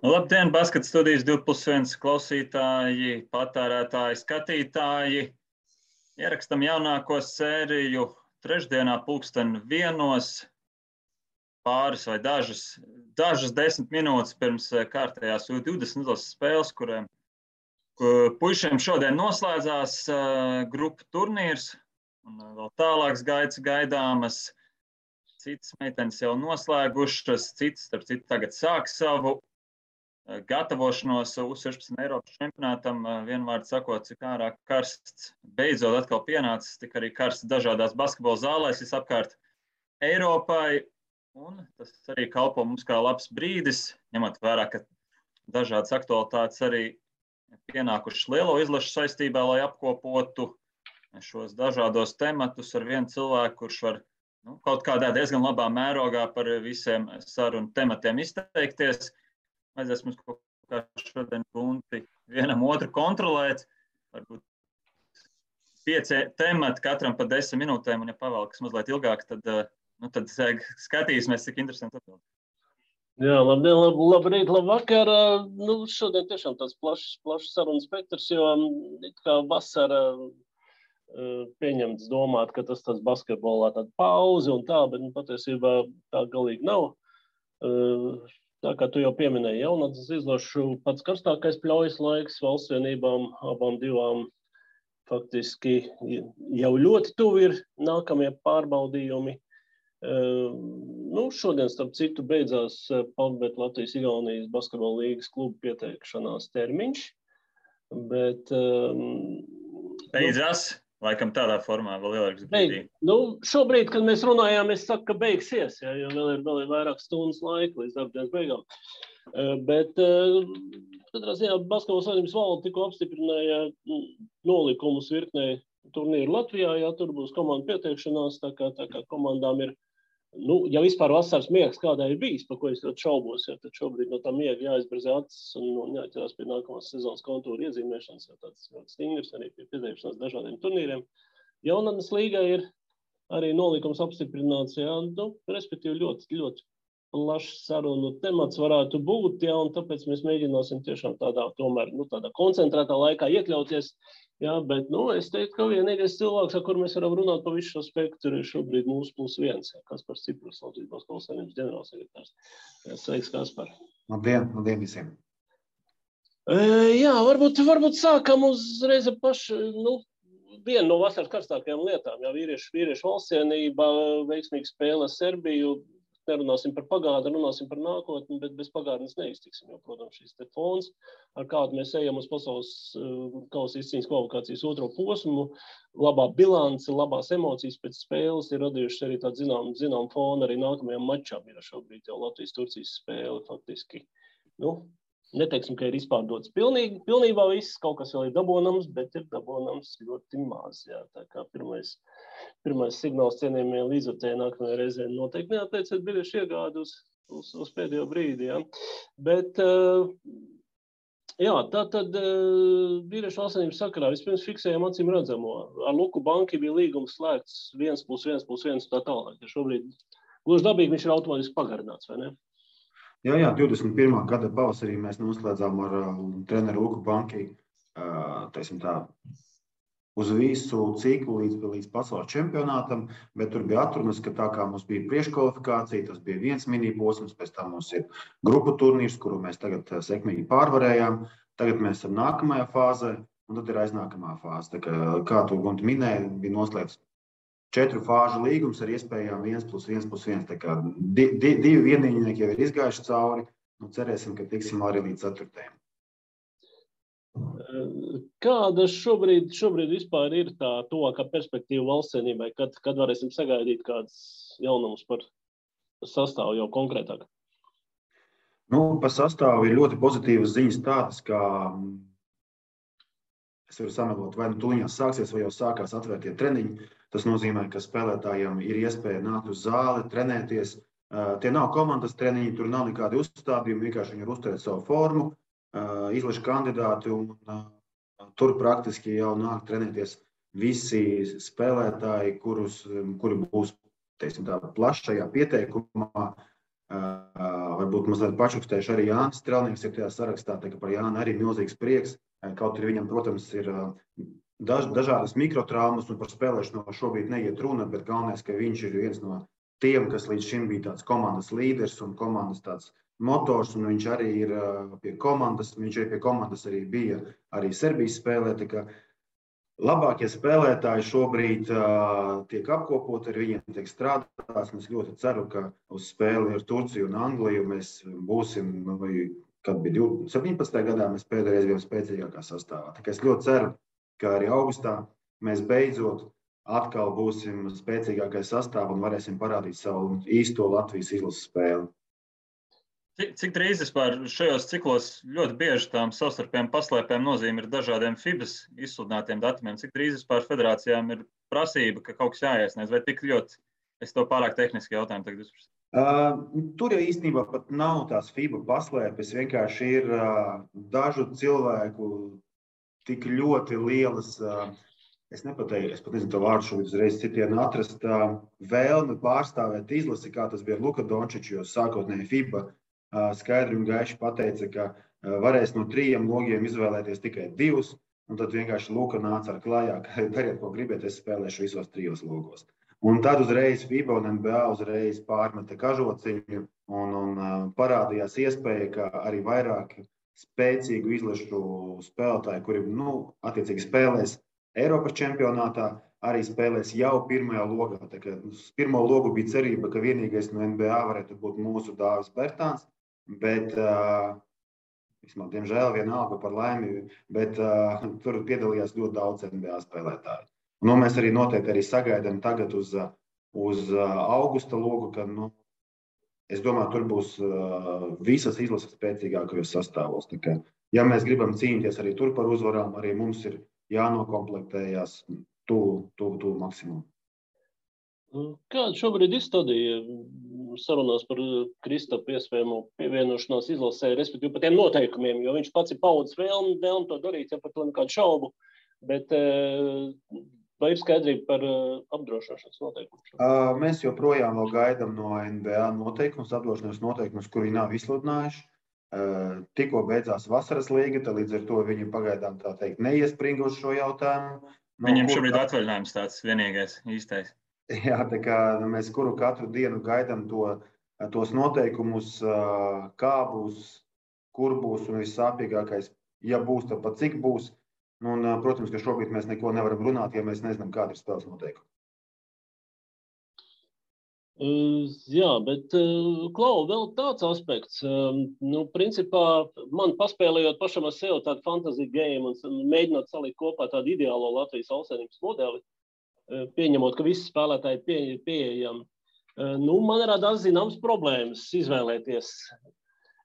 Labdien, Basket studijas 2+1 klausītāji, patērētāji, skatītāji. Ierakstam jaunāko sēriju trešdienā 12:01, pāris vai dažas 10 minūtes pirms kārtējās U20 izlases spēles, kuriem puišiem šodien noslēdzās grupu turnīrs un vēl tālāks gaitas gaidāmas. Citas meitenes jau noslēgušas, citas, starp citu, tagad sāk savu gatavošanos U16 Eiropas čempionātam, vienvārdu sakot, cik ārā karsts beidzot atkal pienācis, tik arī karsts dažādās basketbola zālēs visapkārt Eiropai, un tas arī kalpo mums kā labs brīdis, ņemot vērā, ka dažādas aktualitātes arī pienākušas lielo izlašu saistībā, lai apkopotu šos dažādos tematus ar vienu cilvēku, kurš var kaut kādā diezgan labā mērogā par visiem sarunu tematiem izteikties. Vajadzēs mums kaut kā šodien bunti vienam otru kontrolēt, varbūt 5 temati katram pa 10 minūtēm, un ja pavēlkas mazliet ilgāk, tad skatīsimies, cik interesanti atbild. Jā, labdien, labrīt, labvakar. Šodien tiešām tāds plašs sarunu spektrs, jo kā vasara pieņemts domāt, ka tas tāds basketbolā tāda pauze un tā, bet patiesībā tā galīgi nav. Tā kā tu jau pieminēji, jaunatnes izlašu pats karstākais pļaujas laiks valsts vienībām, abām divām faktiski jau ļoti tuvi ir nākamie pārbaudījumi. Šodien, starp citu, beidzās PAVBet Latvijas-Igaunijas basketbola līgas klubu pieteikšanās termiņš, bet... Beidzās? Laikam tādā formā vēl ieliks brīdī. Šobrīd, kad mēs runājām, es saku, ka beigsies, jo vēl ir vairāk stundas laika līdz darbdienas beigām. Bet, katrā ziņā, Basketbola savienības valde tikko apstiprināja nolikumus virknei turnīru Latvijā, tur būs komandu pieteikšanās, tā kā komandām ir, ja vispār vasaras miegs kādai ir bijis, par ko es ļoti šaubos, tad šobrīd no tā miega jāizberzē acis un jāķerās pie nākamās sezonas kontūra iezīmēšanas, jo tāds ļoti stingrs arī pie pieteikšanās dažādiem turnīriem. Jaunatnes līgai ir arī nolikums apstiprināts, respektīvi ļoti, ļoti plašs sarunu temats varētu būt, un tāpēc mēs mēģināsim tiešām tādā koncentrētā laikā iekļauties. Bet es teiktu, ka vienīgais cilvēks, ar kur mēs varam runāt pa visu šo spektru, ir šobrīd mūsu +1, Kaspars Ciprus, Latvijas Basketbola savienības ģenerālsekretārs. Sveiks, Kaspar. Labdien visiem. Varbūt sākam uzreiz ar pašu, vienu no vasaras karstākajām lietām. Vīriešu valstsienība, veiksmīga spēle Serbiju. Nerunāsim par pagātni, runāsim par nākotni, bet bez pagātnes neiztiksim, jo, protams, šis te fons, ar kādu mēs ejam uz pasaules kausa izcīņas kvalifikācijas otro posmu, labā bilance, labās emocijas pēc spēles ir radījušas arī tādu zinām fonu arī nākamajām mačām. Ir šobrīd jau Latvijas-Turcijas spēle faktiski, neteiksim, ka ir izpārdots pilnībā viss, kaut kas vēl ir dabonams, bet ir dabonams ļoti maz. Tā kā pirmais signāls cienījumie līdzvērtēji nākamajā reizē noteikti neatteiciet biļešu iegādi uz pēdējo brīdi. Bet, tātad vīriešu valstsienības sakarā vispirms fiksējam acīm redzamo. Ar Luku Banki bija līgums slēgts 1+1+1 tā tālāk. Šobrīd gluži dabīgi viņš ir automātiski pagarināts, vai ne? Jā, 21. gada pavasarī mēs noslēdzām ar treneru Luku Banki, uz visu ciklu līdz pasaules čempionātam, bet tur bija atrunas, ka tā kā mums bija priekškvalifikācija, tas bija viens mini-posms, pēc tam mums ir grupu turnīrs, kuru mēs tagad sekmīgi pārvarējām, tagad mēs esam nākamajā fāzē, un tad ir aiznākamā fāze. Tā kā tu Gunti minēji, bija noslēgts 4 fāžu līgums ar iespējām 1+1+1, tā kā 2 vienīgnieki jau ir izgājuši cauri, cerēsim, ka tiksim arī līdz 4. Kāda šobrīd vispār ir tā tuvākā perspektīva valstsienībai, kad varēsim sagaidīt kādas jaunumus par sastāvu jau konkrētāk? Par sastāvu ir ļoti pozitīvas ziņas tādas, ka es varu samelot, vai tuliņās sāksies, vai jau sākās atvērtie treniņi. Tas nozīmē, ka spēlētājiem ir iespēja nākt uz zāli, trenēties. Tie nav komandas treniņi, tur nav nekādi uzstādījumi, vienkārši viņi ir uzturēt savu formu. Izlašu kandidāti, un tur praktiski jau nāk trenēties visi spēlētāji, kuri būs, plašajā pieteikumā, vai varbūt mazliet pačukstējuši arī Jānis Strelnieks ir tajā sarakstā, tā ka par Jāni arī milzīgs prieks. Kaut arī viņam, protams, ir dažādas mikrotraumas un par spēlēšanu šobrīd neiet runa, bet galvenais, ka viņš ir viens no tiem, kas līdz šim bija tāds komandas līderis un komandas tāds motors, un viņš arī ir pie komandas, arī bija arī Serbijas spēlē, tā kā labākie spēlētāji šobrīd tiek apkopoti, ar viņiem tiek strādāts, un es ļoti ceru, ka uz spēli ar Turciju un Angliju mēs būsim, kad bija 17. gadā, mēs pēdējais bijām spēcīgākā sastāvā. Tā kā es ļoti ceru, ka arī augustā mēs beidzot atkal būsim spēcīgākais sastāvs un varēsim parādīt savu īsto Latvijas izlases spēli. Cik drīz vispār šajos ciklos ļoti bieži tām savstarpējām paslēpēm nozīme ir dažādiem FIBAs izsludinātiem datumiem? Cik drīz vispār federācijām ir prasība, ka kaut kas jāiesniedz? Vai tik ļoti, es to pārāk tehniski jautājumu tagad uzprasu? Tur jau īstenībā pat nav tās FIBA paslēpes, vienkārši ir dažu cilvēku tik ļoti lielas, es pat nezinu to vārdu šobrīd uzreiz citienu atrast, vēlme pārstāvēt izlasi, kā tas bija Luka Dončičs, jo sākotnēji FIBA skaidri un gaiši pateica, ka varēs no 3 logiem izvēlēties tikai 2, un tad vienkārši Luka nāca ar klājā, ka dariet, ko gribiet, es spēlēšu visos 3 logos. Un tad uzreiz FIBA un NBA uzreiz pārmeta kažociņu un parādījās iespēja, ka arī vairāk spēcīgu izlašu spēlētāju, kuri attiecīgi spēlēs Eiropas čempionātā, arī spēlēs jau pirmajā logā. Tā kā uz pirmo logu bija cerība, ka vienīgais no NBA varētu būt mūsu Dāvis Bertāns, bet, diemžēl, vienalga par laimi, bet tur piedalījās ļoti daudz NBA spēlētāju. Mēs arī noteikti arī sagaidām tagad uz augusta logu, ka, es domāju, tur būs visas izlases spēcīgākajos sastāvos. Tā kā, ja mēs gribam cīnīties arī tur par uzvarām, arī mums ir jānokomplektējās tuvu maksimumu. Kāda šobrīd izstādīja sarunās par Kristapu iespējamo pievienošanās izlasē, respektīvi par tiem noteikumiem, jo viņš pats ir paudzes vēlmi to darīt, ja par to nekādu šaubu, bet vai ir skaidrība par apdrošināšanas noteikumus? Mēs joprojām vēl gaidām no NBA apdrošināšanas noteikumus, kuri nav izsludinājuši. Tikko beidzās vasaras līga, tad līdz ar to viņi pagaidām tā teikt neiespringa uz šo jautājumu. Viņam šobrīd atvaļinājums tāds vienīgais īstais. Jā, tā kā mēs katru dienu gaidām tos noteikumus, kā būs, kur būs un vissāpīgākais, ja būs, tad pat cik būs. Un, protams, ka šobrīd mēs neko nevaram runāt, ja mēs nezinām, kāda ir spēles noteikumi. Jā, bet, Klau, vēl tāds aspekts. Principā, man paspēlējot pašam ar sevi tādu fantasy game un mēģinot salikt kopā tādu ideālo Latvijas valstsvienības modeli, pieņemot, ka visi spēlētāji ir pieejami. Man radās zināmas problēmas izvēlēties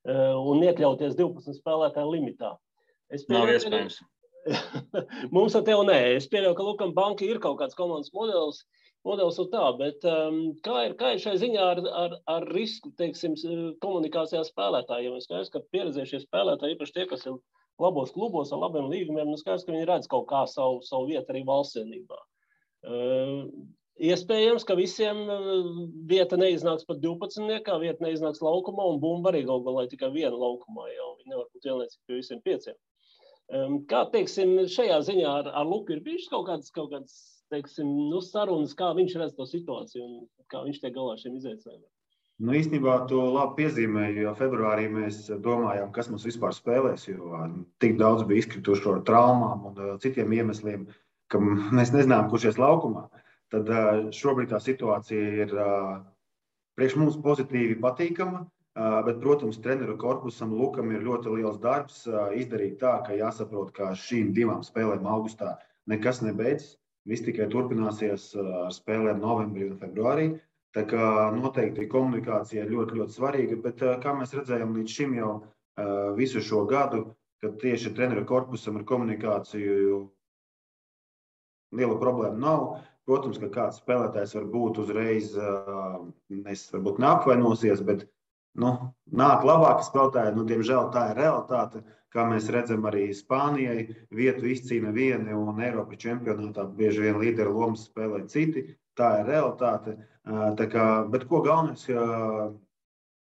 un iekļauties 12 spēlētāju limitā. Nav iespējams. Mums ar tevi nē. Es pieļauju, ka Lukam Banki ir kaut kāds komandas modelis un tā, bet kā ir šai ziņā ar risku, teiksim, komunikācijā spēlētājiem? Es skaidrs, ka pieredzējušie spēlētāji, īpaši tie, kas ir labos klubos ar labiem līgumiem, skaidrs, ka viņi redz kaut kā savu vietu arī valstsienībā. Iespējams, ka visiem vieta neiznāks pat 12, vieta neiznāks laukumā, un bumba arī galvā tikai viena laukumā jau. Viņi nevar būt vienlaicīgi pie visiem 5. Kā, teiksim, šajā ziņā ar Luku ir bijušas kaut kādas, teiksim, sarunas, kā viņš redz to situāciju un kā viņš tiek galā šiem izaicinājumiem? Īstenībā to labi piezīmēju, jo februārī mēs domājām, kas mums vispār spēlēs, jo tik daudz bija izkrituši ar traumām un citiem iemesliem, ka mēs nezinām, kurš ies laukumā. Tad šobrīd tā situācija ir priekš mums pozitīvi patīkama, bet, protams, treneru korpusam Lukam ir ļoti liels darbs izdarīt tā, ka jāsaprot, ka šīm 2 spēlēm augustā nekas nebeidzas. Viss tikai turpināsies ar spēlēm novembrī un februārī. Tā kā noteikti komunikācija ir ļoti, ļoti svarīga, bet kā mēs redzējām līdz šim jau visu šo gadu, kad tieši treneru korpusam ar komunikāciju liela problēma nav. Protams, ka kāds spēlētājs varbūt uzreiz varbūt neapvainosies, bet nāk labāki spēlētāji. Diemžēl tā ir realitāte, kā mēs redzam arī Spānijai. Vietu izcīna vieni un Eiropas čempionātā bieži vien līderu lomas spēlē citi. Tā ir realitāte. Bet ko galvenais,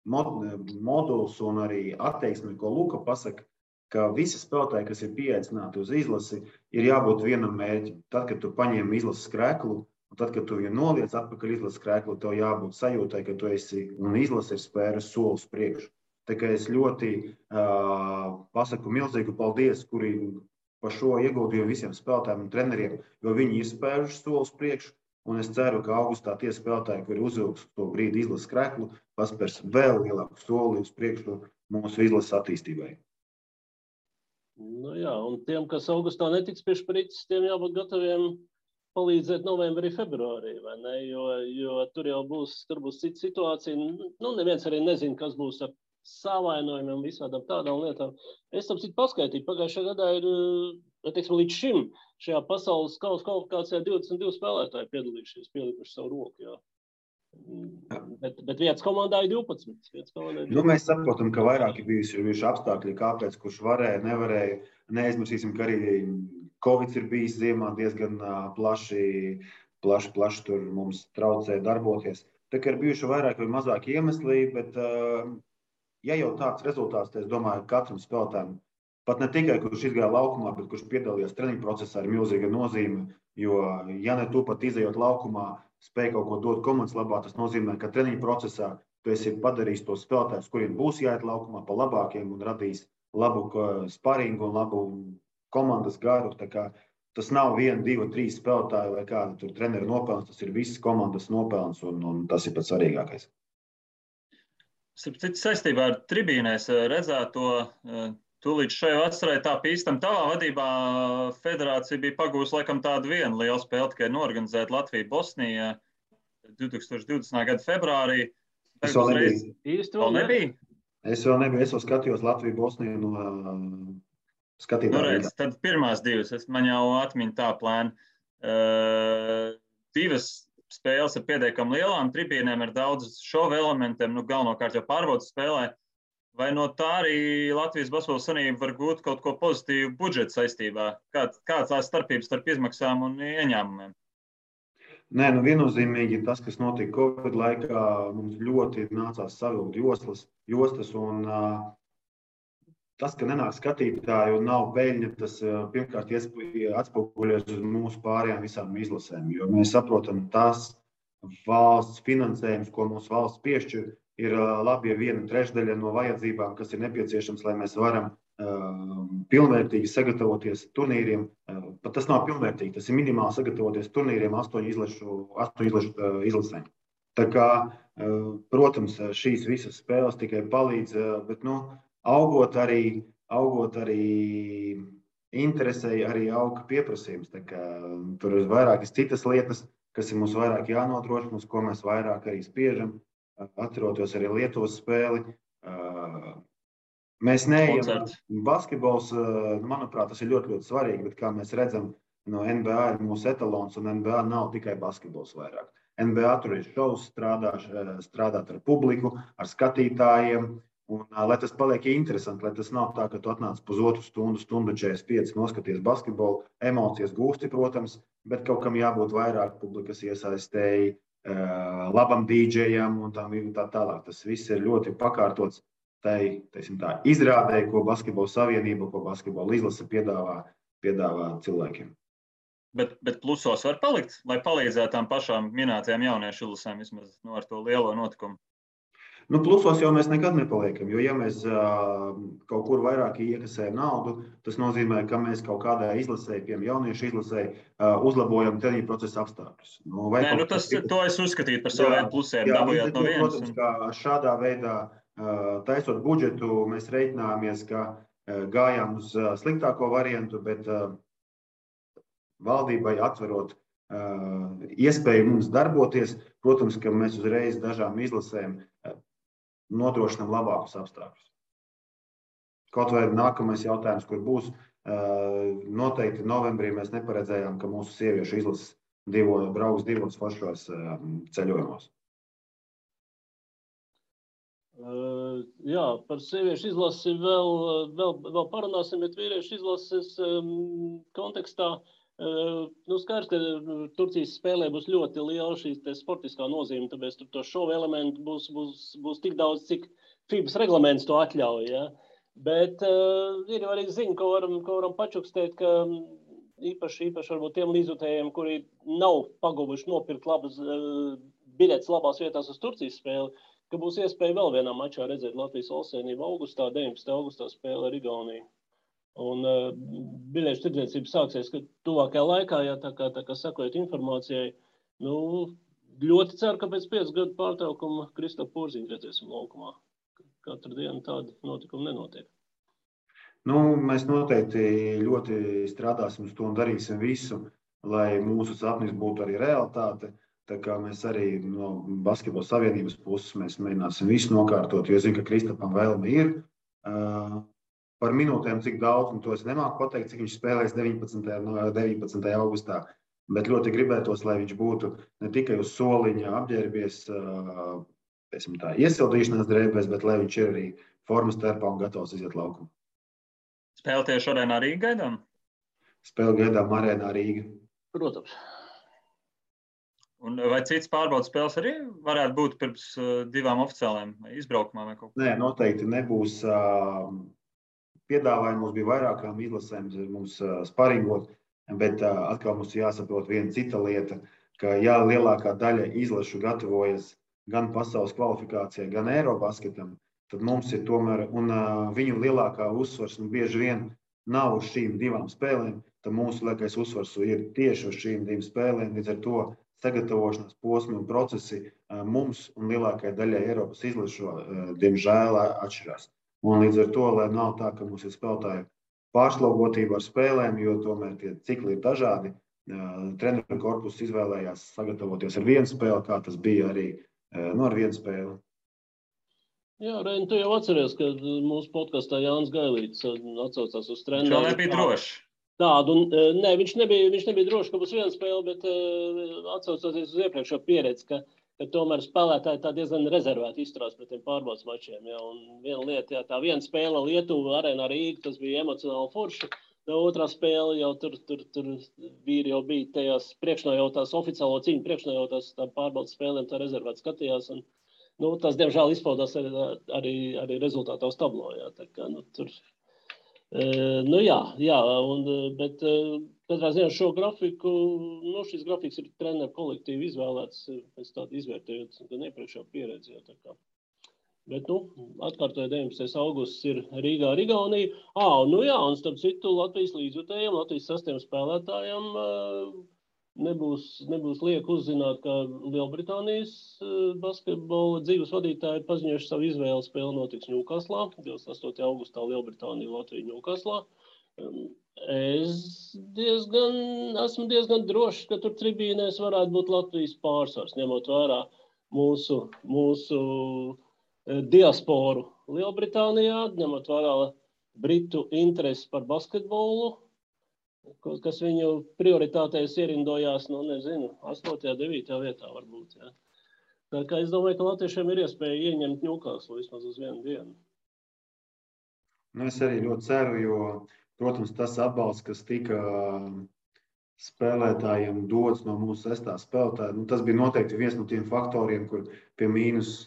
moduls un arī attieksme, ko Luka pasaka, ka visi spēlētāji, kas ir pieaicināti uz izlasi, ir jābūt vienam mērķim. Tad, kad tu paņem izlases krēklu, un tad, kad tu viņu noliec atpakaļ izlases krēklu, tev jābūt sajūtai, ka tu esi un izlase ir spēris solis priekšu. Tā kā es ļoti pasaku milzīgu paldies, kuri par šo ieguldījumu visiem spēlētājiem un treneriem, jo viņi ir spēruši solis priekšu, un es ceru, ka augustā tie spēlētāji, kuri uzvilks to brīdi izlases krēklu, paspērs vēl lielāku soli uz priekšu mūsu izlases attīstībai. Nu jā, un tiem, kas augustā netiks pie šprices, tiem jābūt gataviem palīdzēt novembrī, februārī, vai ne? Jo tur jau būs cita situācija. Nu, neviens arī nezina, kas būs ar savainojumiem un visādām tādām lietām. Es tam citu paskaitīju. Pagājušajā gadā ir, teiksim, līdz šim šajā pasaules kausa kvalifikācijā 22 spēlētāji piedalījušies, pielikuši savu roku, jā. Bet vietas komandā ir 12. Mēs saprotam, ka vairāk ir bijuši apstākļi, kāpēc, kurš varēja, nevarēja. Neaizmirsīsim, ka arī Covid ir bijis ziemā diezgan plaši tur mums traucēja darboties. Tā kā ir bijuši vairāk vai mazāk iemesli, bet ja jau tāds rezultāts, tad es domāju, ka katram spēlētājam, pat ne tikai, kurš izgāja laukumā, bet kurš piedalījās treniņu procesā, ir milzīga nozīme, jo ja ne tu pat izejot laukumā, spēj kaut ko dot komandas labā, tas nozīmē, ka treniņu procesā tu esi padarījis tos spēlētājus, kuriem būs jāiet laukumā pa labākiem un radīs labu sparingu un labu komandas garu. Tā kā tas nav 1, 2, 3 spēlētāji vai kāda tur trenera nopelns, tas ir visas komandas nopelns un tas ir pats svarīgākais. Saistībā ar tribīnēs redzēto, tūlīt šai vasarai tā pīstam tavā vadībā federācija bija pagūs laikam tādu vienu lielu spēli, tikai norganizēt Latviju-Bosniju 2020. gada februārī. Es vēl nebiju. Vēl nebija? Es vēl nebiju. Es vēl skatījos Latviju-Bosniju no skatītāju. Tad pirmās divas, man jau atmiņa tā plēna. Divas spēles ar pietiekami lielām tribīnēm, ar daudz šova elementiem, galvenokārt jau pārbaudas spēlē. Vai no tā arī Latvijas Basketbola Savienība var gūt kaut ko pozitīvu budžeta saistībā? Kāds tās starpības starp izmaksām un ieņēmumiem? Nē, viennozīmīgi tas, kas notika Covid laikā, mums ļoti nācās savilkt jostas un tas, ka nenāk skatītāji un nav peļņa, tas pirmkārt atspoguļojas uz mūsu pārējām visām izlasēm, jo mēs saprotam tas valsts finansējums, ko mūsu valsts piešķir, ir labi, ja 1/3 no vajadzībām, kas ir nepieciešams, lai mēs varam pilnvērtīgi sagatavoties turnīriem. Pat tas nav pilnvērtīgi, tas ir minimāli sagatavoties turnīriem 8 izlasēm. Tā kā, protams, šīs visas spēles tikai palīdz, bet augot arī interesei, arī auga pieprasījums. Tā kā, tur ir vairākas citas lietas, kas ir mums vairāk jānodrošina, uz ko mēs vairāk arī spiežam. Atceroties arī Lietuvas spēli. Mēs neejam basketbols, manuprāt, tas ir ļoti, ļoti svarīgi, bet kā mēs redzam, no NBA ir mūsu etalons, un NBA nav tikai basketbols vairāk. NBA tur ir šovs, strādāt ar publiku, ar skatītājiem, un lai tas paliek interesanti, lai tas nav tā, ka tu atnāc pusotru stundu, 45 noskaties basketbolu, emocijas gūsti, protams, bet kaut kam jābūt vairāk publikas iesaistēji, labam dīdžejam un tā tālāk. Tas viss ir ļoti pakārtots tai izrādē, ko Basketbola Savienība, ko Basketbola izlase piedāvā cilvēkiem. Bet plusos var palikt, lai palīdzētu tām pašām minētajām jauniešu izlasēm vismaz ar to lielo notikumu? Plusos jau mēs nekad nepaliekam, jo ja mēs kaut kur vairāk iekasējam naudu, tas nozīmē, ka mēs kaut kādā izlasē, piemēram, jauniešu izlasē, uzlabojam treniņu procesa apstākļus. To es uzskatītu par saviem plusiem, dabūjāt no vienas. Protams, ka šādā veidā taisot budžetu, mēs reiķinājāmies, ka gājām uz sliktāko variantu, bet valdībai atverot iespēju mums darboties, protams, ka mēs uzreiz dažām izlasēm nodrošinām labākus apstākļus. Kaut vai nākamais jautājums, kur būs, noteikti novembrī mēs neparedzējām, ka mūsu sieviešu izlases brauks divos foršos ceļojumos. Jā, par sieviešu izlasi vēl parunāsim, bet vīriešu izlases kontekstā Skaidrs, ka Turcijas spēlē būs ļoti liela šī sportiskā nozīme, tāpēc tur to šovu elementu būs tik daudz, cik FIBAs reglaments to atļauj. Ja? Bet ir arī ziņa, ko varam pačukstēt, ka īpaši varbūt tiem līdzjutējiem, kuri nav paguvuši nopirkt labas biļetes labās vietās uz Turcijas spēli, ka būs iespēja vēl vienā mačā redzēt Latvijas valstsvienību augustā, 19. augustā spēle ar Igauniju. Un biļešu tirdzniecība sāksies tuvākajā laikā, ja tā kā sakojot informācijai. Ļoti ceru, ka pēc 5 gadu pārtraukuma Kristofu Porziņu redzēsim laukumā. Katru dienu tādi notikumi nenotiek. Mēs noteikti ļoti strādāsim uz to un darīsim visu, lai mūsu sapnis būtu arī realitāte. Tā kā mēs arī no Basketbola savienības puses mēs mēģināsim visu nokārtot, jo es zinu, ka Kristapam vēlme ir. Par minūtēm, cik daudz, to es nemāku pateikt, cik viņš spēlēs 19. augustā, bet ļoti gribētos, lai viņš būtu ne tikai uz soliņa apģērbies, iesildīšanās drēbēs, bet lai viņš ir arī formas terpā un gatavs iziet laukumā. Spēle tieši Arēnā Rīga gaidām? Spēle gaidām Arēnā Rīga. Protams. Un vai cits pārbaudas spēles arī varētu būt pirms 2 oficiāliem izbraukumā vai kaut ko? Nē, noteikti nebūs. Piedāvājumi mums bija vairākām izlasēm, mums sparingot, bet atkal mums jāsaprot viena cita lieta, ka lielākā daļa izlašu gatavojas gan pasaules kvalifikācijai, gan Eirobasketam, tad mums ir tomēr, un viņu lielākā uzsvars bieži vien nav uz šīm 2 spēlēm, tad mūsu lielākais uzsvars ir tieši uz šīm 2 spēlēm, līdz ar to sagatavošanās posmi un procesi mums un lielākajai daļai Eiropas izlašu, diemžēl, atšķirās. Un līdz ar to, lai nav tā, ka mums ir spēlētāju pārslogotība ar spēlēm, jo tomēr tie cikli ir dažādi. Treneru korpus izvēlējās sagatavoties ar 1 spēli, kā tas bija arī ar 1 spēli. Jā, Reini, tu jau atceries, ka mūsu podkastā Jānis Gailīts atsaucās uz treneru. Viņš vēl nebija drošs. Tādu, nē, viņš nebija drošs, ka būs 1 spēle, bet atsaucoties uz iepriekšo pieredzi, ka tomēr spēlētāji tā diezgan rezervēti izturās pret tiem pārbaudas mačiem. Ja, un viena lieta, tā 1 spēle Lietuva, Arēnā Rīga, tas bija emocionāli forši. Otrā spēle jau tur vīri jau bija tajās priekšnojautās, oficiālo cīņu priekšnojautās tā pārbaudas spēlēm, tā rezervēti skatījās. Un, tas, diemžēl, izpaudās arī rezultātā uz tablo. Ja, tā kā, tur... bet katrā ziņā šo grafiku, šis grafiks ir treneru kolektīvi izvēlēts pēc tādu izvērtējot gan iepriekšā pieredzi. Bet, atkārtoju 19. augusts ir Rīgā ar Igauniju. Un starp citu Latvijas līdzjutējiem, Latvijas 6 spēlētājiem nebūs liek uzzināt, ka Lielbritānijas basketbola dzīves vadītāji paziņojuši savu izvēli. Spēle notiks Ņūkaslā, 28. augustā Lielbritānija, Latvija Ņūkaslā. Esmu diezgan drošs, ka tur tribīnēs varētu būt Latvijas pārsvars, ņemot vērā mūsu diasporu Lielbritānijā, ņemot vērā Britu interesi par basketbolu, kas viņu prioritātēs ierindojās, 8. 9. vietā varbūt. Ja. Tā kā es domāju, ka latviešiem ir iespēja ieņemt Ņūkaslu vismaz uz 1 dienu. Es arī ļoti ceru, jo, protams, tas atbalsts, kas tika spēlētājiem dots no mūsu 6. spēlētāja, tas bija noteikti viens no tiem faktoriem, kur pie mīnus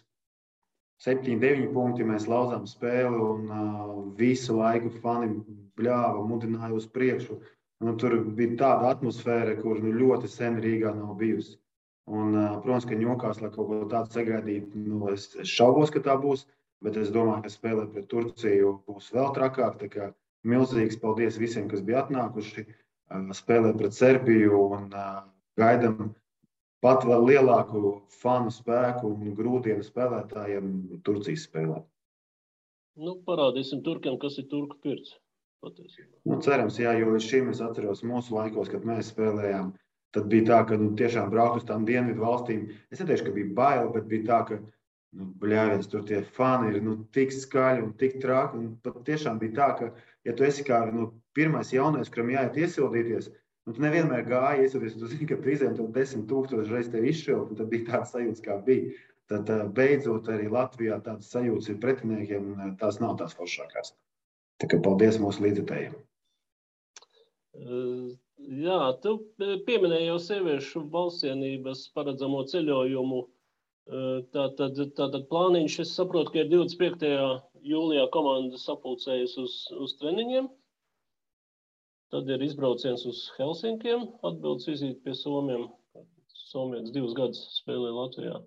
7-9 punkti mēs lauzām spēli un visu laiku fani bļāva, mudināja uz priekšu. Tur bija tāda atmosfēra, kur ļoti sen Rīgā nav bijusi. Un, protams, ka Ņūkaslā kaut ko tādu sagaidīt, es šaubos, ka tā būs, bet es domāju, ka spēlē pret Turciju būs vēl trakāk. Tā kā milzīgs paldies visiem, kas bija atnākuši, spēlē pret Serbiju un gaidam pat vēl lielāku fanu spēku un grūdienu spēlētājiem Turcijas spēlē. Parādīsim turkiem, kas ir turku pirts. Cerams, jā, jo līdz šim es atceros mūsu laikos, kad mēs spēlējām, tad bija tā, ka tiešām braukt uz tām dienvidu valstīm. Es neteikšu, ka bija bail, bet bija tā, ka bļāviens, tur tie fani ir tik skaļi un tik traki. Un pat tiešām bija tā, ka, ja tu esi kā pirmais jaunais, kuram jāiet iesildīties, tu nevienmēr gāji iesildīties, tu zini, ka prizēm to 10,000 reiz tevi izšķilt, un tad bija tāds sajūts, kā bija. Tad beidzot arī Latvijā tāds sajūts ir pretiniekiem, un tās nav tās foršākās. Tā kā paldies mūsu līdzekļiem. Jā, tu pieminēji jau sieviešu valstsienības paredzamo ceļojumu. Tātad plāniņš, es saprotu, ka ir 25. jūlijā komanda sapulcējas uz treniņiem. Tad ir izbrauciens uz Helsinkiem, atbildes vizīti pie Somiem. Somietis 2 gadus spēlē Latvijā.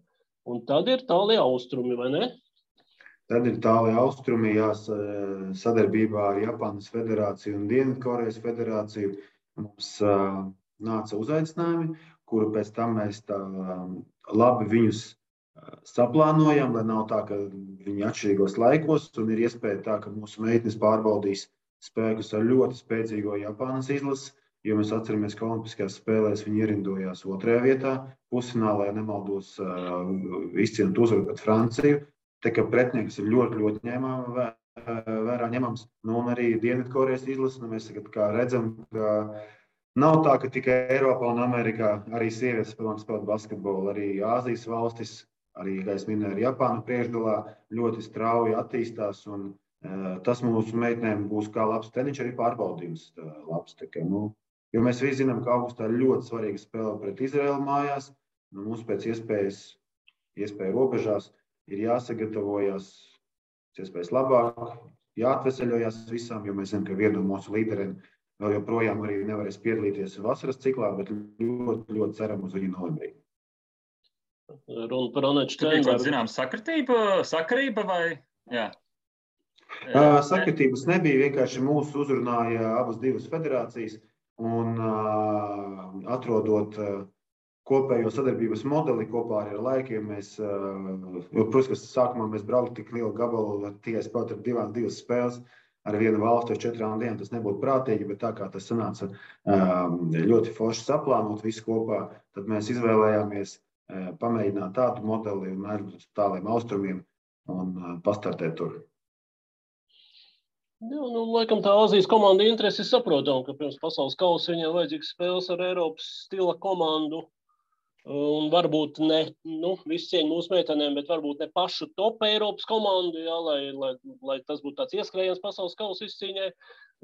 Un tad ir tālie austrumi, vai ne? Tad ir tālie austrumi, sadarbībā ar Japānas federāciju un Dienvidkorejas federāciju. Mums nāca uzaicinājumi, kuru pēc tam mēs tā labi viņus saplānojam, lai nav tā, ka viņi atšķirīgos laikos, un ir iespēja tā, ka mūsu meitenes pārbaudīs spēkus ar ļoti spēcīgo Japānas izlasi, jo mēs atceramies, ka Olimpiskajās spēlēs viņi ierindojās 2. vietā, pusfinālā, ja nemaldos, izcīnot uzvaru pret Franciju. Tā kā pretinieks ir ļoti vērā ņemams. Nu, un arī Dienvidkorejas izlase, mēs kā redzam, ka nav tā, ka tikai Eiropā un Amerikā arī sievietes spēlē basketbolu, arī Āzijas valstis, arī, kā es minēju, Japāna priekšgalā ļoti strauji attīstās, un tas mūsu meitenēm būs kā labs treniņš, arī pārbaudījums labs. Tā kā, jo mēs visi zinām, ka augustā ļoti svarīga spēle pret Izraēlu mājās, mums pēc iespēju robežās ir jāsagatavojas iespējas labāk, jāatveseļojas visām, jo mēs zinām, ka viena no mūsu līderiem vēl joprojām arī nevarēs piedalīties vasaras ciklā, bet ļoti ceram uz viņu novembrī. Runa par Aneču Steinbergu. Zinām, sakarība vai? Jā. Sakritības nebija, vienkārši mūs uzrunāja abas divas federācijas un atrodot kopējo sadarbības modeli kopā ar laikiem. Protams, ka sākumā mēs brauktu tik lielu gabalu, tikai spēlēt ar divas spēles ar vienu valstu ar 4 dienām, tas nebūtu prātīgi, bet tā kā tas sanāca ļoti forši saplānot visu kopā, tad mēs izvēlējāmies pamēģināt tādu modeli un ar tāliem austrumiem un pastartēt tur. Jā, laikam tā Āzijas komanda interesi saprotam, ka pirms pasaules kausa viņiem vajadzīgs spēles ar Eiropas stila komandu. Un varbūt ne, visu cieņu mūsu meitenēm, bet varbūt ne pašu top Eiropas komandu, jā, lai tas būtu tāds ieskrējiens pasaules kausa izcīņai.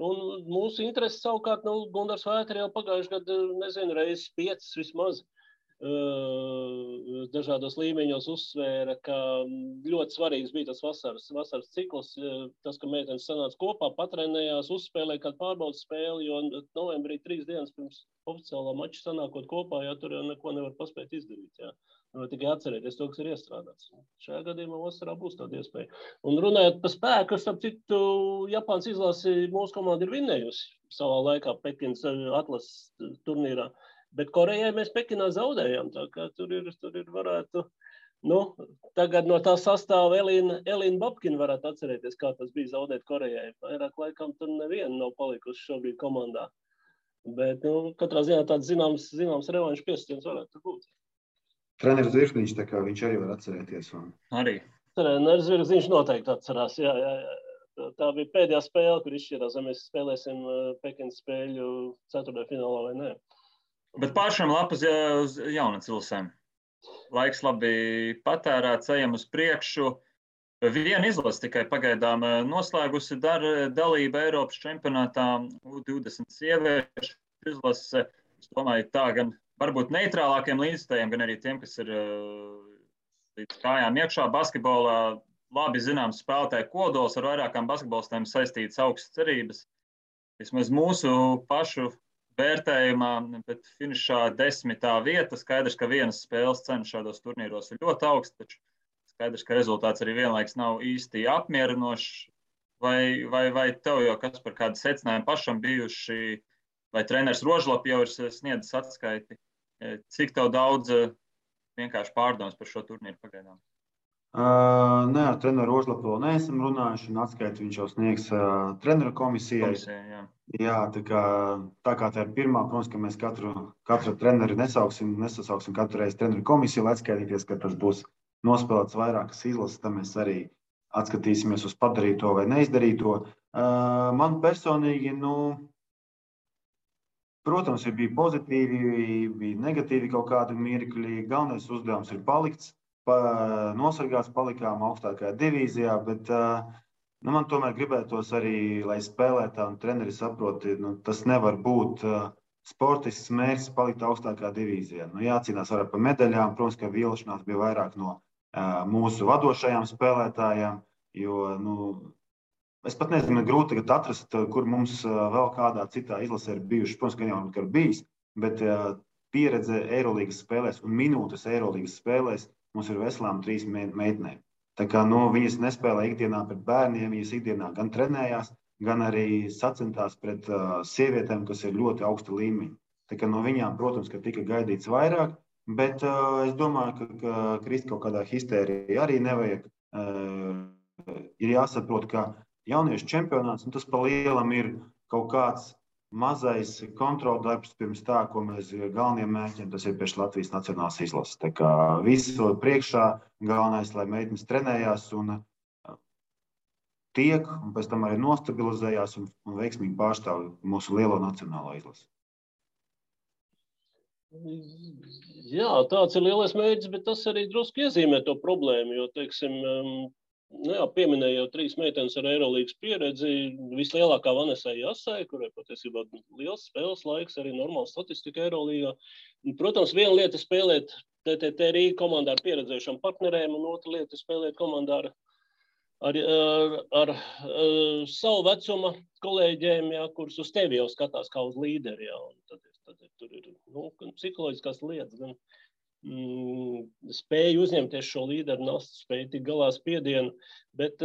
Un mūsu interesi savukārt, Gundars Vētri jau pagājuši gadu, nezinu, reizes 5 vismaz. Dažādos līmeņos uzsvēra, ka ļoti svarīgs bija tas vasaras cikls, tas, ka meitenes sanāca kopā, patrenējās, uzspēlēja kādu pārbaudas spēli, jo novembrī 3 dienas pirms oficiālā mača sanākot kopā, tur jau neko nevar paspēt izdarīt. Jā. Tikai atcerēties to, kas ir iestrādāts. Šajā gadījumā vasarā būs tāda iespēja. Un runājot par spēku, starp citu, Japānas izlasi mūsu komanda ir vinnējusi savā laikā Pekinas atlases turnīrā. Bet Korejai mēs Pekinā zaudējām, tā kā tur ir varētu, tagad no tā sastāva Elīna Babkina varētu atcerēties, kā tas bija zaudēt Korejai. Vairāk laikam tur neviena nav palikusi šobrīd komandā. Bet, katrā ziņā tāds zināms revanšu piesitiens varētu būt. Treneris Zvirzniņš, tā kā viņš arī var atcerēties. Arī. Treneris Zvirzniņš noteikti atcerās, jā. Tā bija pēdējā spēle, kur izšķirās, vai mēs spēlēsim Pekinas spēļu 4. finālā vai nē. Bet pāršām lapas uz Jaunacilsēm. Laiks labi patērēts, ejam uz priekšu. Viena izlase tikai pagaidām noslēgusi dalību Eiropas čempionātā U20 sieviešu izlase. Es domāju, tā gan varbūt neitrālākiem līdzstājiem, gan arī tiem, kas ir līdz kājām iekšā basketbolā. Labi zināms spēlētāju kodols ar vairākām basketbolistēm saistītas augstas cerības. Vismaz mūsu pašu vērtējumā, bet finišā 10. vieta. Skaidrs, ka vienas spēles cena šādos turnīros ir ļoti augsta, taču skaidrs, ka rezultāts arī vienlaiks nav īsti apmierinošs. Vai tev jau kas par kādu secinājumu pašam bijuši, vai treneris Rožlap jau ir sniedzis atskaiti? Cik tev daudz vienkārši pārdomas par šo turnīru pagaidām? Nē, ar treneru Rožlapu vēl neesam runājuši, un atskaiti viņš jau sniegs treneru komisijai. Jā, tā kā tā ir pirmā, protams, ka mēs katru treneri nesasauksim katru reizi treneru komisiju, lai atskaitīties, ka tas būs nospēlēts vairākas izlases, tad mēs arī atskatīsimies uz padarīto vai neizdarīto. Man personīgi, protams, bija pozitīvi, bija negatīvi kaut kādi mirkļi. Galvenais uzdevums ir palikts. Nosargāts, palikām augstākajā divīzijā, bet man tomēr gribētos arī, lai spēlētāji un treneri saproti, tas nevar būt sportists mērķis palikt augstākā divīzijā. Nu, jācīnās arī par medaļām. Protams, ka vilšanās bija vairāk no mūsu vadošajām spēlētājām, jo es pat nezinu, grūti tagad atrast, kur mums vēl kādā citā izlasē ir bijuši. Protams, ka jau ir bijis, bet pieredze Eirolīgas spēlēs un minūtes Eirolīgas spēlēs mums ir veselām 3 meitenēm. Tā kā viņas nespēlē ikdienā pret bērniem, viņas ikdienā gan trenējās, gan arī sacentās pret sievietēm, kas ir ļoti augsta līmeņa. Tā kā no viņām, protams, ka tika gaidīts vairāk, bet es domāju, ka krist kaut kādā histērija arī nevajag. Ir jāsaprot, ka jauniešu čempionāts, tas pa lielam ir kaut kāds mazais kontroldarbs pirms tā, ko mēs galveniem mērķiem, tas ir priekš Latvijas nacionālās izlases. Tā kā visu priekšā galvenais, lai meitenes trenējās un tiek, un pēc tam arī nostabilizējās un veiksmīgi pārstāv mūsu lielo nacionālo izlasi. Jā, tāds ir lielais mērķis, bet tas arī drusku iezīmē to problēmu, jo, teiksim, pieminēja jau 3 meitenes ar Eirolīgas pieredzi, vislielākā Vanesai Jasai, kurai patiesībā liels spēles laiks, arī normāla statistika Eirolīgā. Protams, viena lieta spēlēt TTT Rīga komandā ar pieredzējušām partnerēm, un otra lieta spēlēt komandā ar savu vecuma kolēģiem, kurus uz tevi jau skatās kā uz līderi. Tad tur ir gan psiholoģiskās lietas, gan spēja uzņemties šo līderu nastu, spēja tik galā spiedienu, bet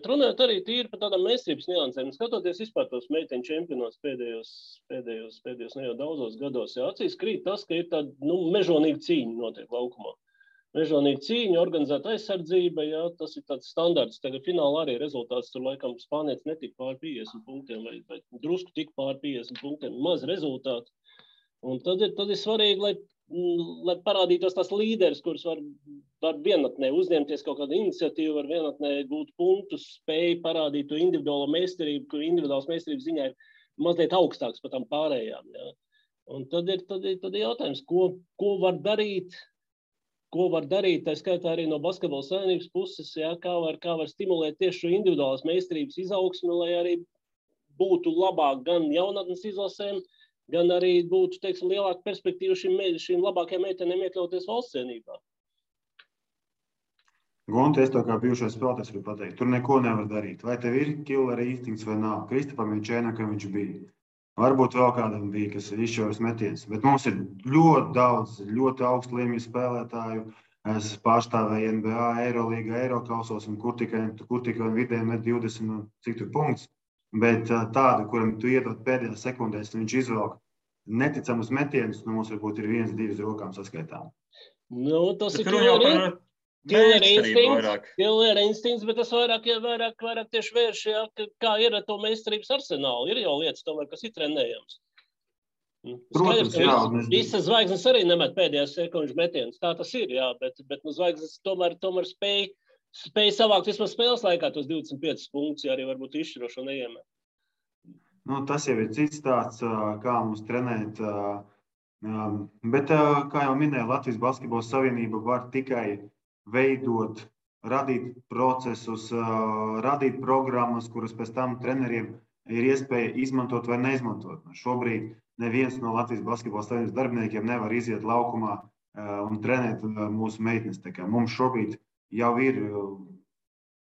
runājot arī tīri par tādām meistarības niansēm, skatoties vispār tos meiteņu čempionātus pēdējos ne jau daudzos gados, acīs krīt tas, ka ir tāda mežonīga cīņa notiek laukumā. Mežonīga cīņa, organizēta aizsardzība, tas ir tāds standarts. Tagad finālā arī rezultāts tur laikam spānietis netika pār 50 punktiem vai drusku tik pār 50 punktiem, maz rezultātu. Un tad ir svarīgi, lai parādītos tās līderis, kurus var vienatnē uzņemties kaut kādu iniciatīvu, var vienatnē gūt punktus, spēju parādīt to individuālo meistarību, kur individuāls meistarības ziņā ir mazliet augstāks par tām pārējām. Ja? Un tad ir jautājums, ko var darīt, tā skaitā arī no basketbola savienības puses, kā var stimulēt tieši šo individuālās meistarības izaugsmi, lai arī būtu labāk gan jaunatnes izlasēm, gan arī būtu, teiksim, lielāka perspektīva šīm labākajām meitenēm iekļauties valsts cienībā. Gunte, es to kā bijušais spēlētājs varu pateikt, tur neko nevar darīt. Vai tev ir killera instinkts vai nav? Kristapam Jančēnakam viņš bija. Varbūt vēl kādam bija, kas ir izšķiros metiens. Bet mums ir ļoti daudz, ļoti augstu līmeņu spēlētāju. Es pārstāvēju NBA, Eirolīga, Eirokausos, un kur tikai vidēji met 20 cik tur punkts. Bet tādu, kuram tu iedod pēdējās sekundēs, viņš izvelk neticamus metienus, mums varbūt ir 1-2 rokām saskaitām. Tas ir killer instinkts, bet tas vairāk tieši vērš, kā ir ar to meistarības arsenālu. Ir jau lietas tomēr, kas ir trenējams. Protams, visas zvaigznes arī nemet pēdējās sekundžu metienus. Tā tas ir, bet zvaigznes tomēr spēja savākt vismaz spēles laikā tos 25 punktus, arī varbūt izšķirošo neiemet. Tas jau ir cits tāds, kā mums trenēt. Bet, kā jau minēju, Latvijas Basketbola Savienība var tikai veidot, radīt procesus, radīt programmas, kuras pēc tam treneriem ir iespēja izmantot vai neizmantot. Šobrīd neviens no Latvijas Basketbola Savienības darbiniekiem nevar iziet laukumā un trenēt mūsu meitenes. Mums šobrīd jau ir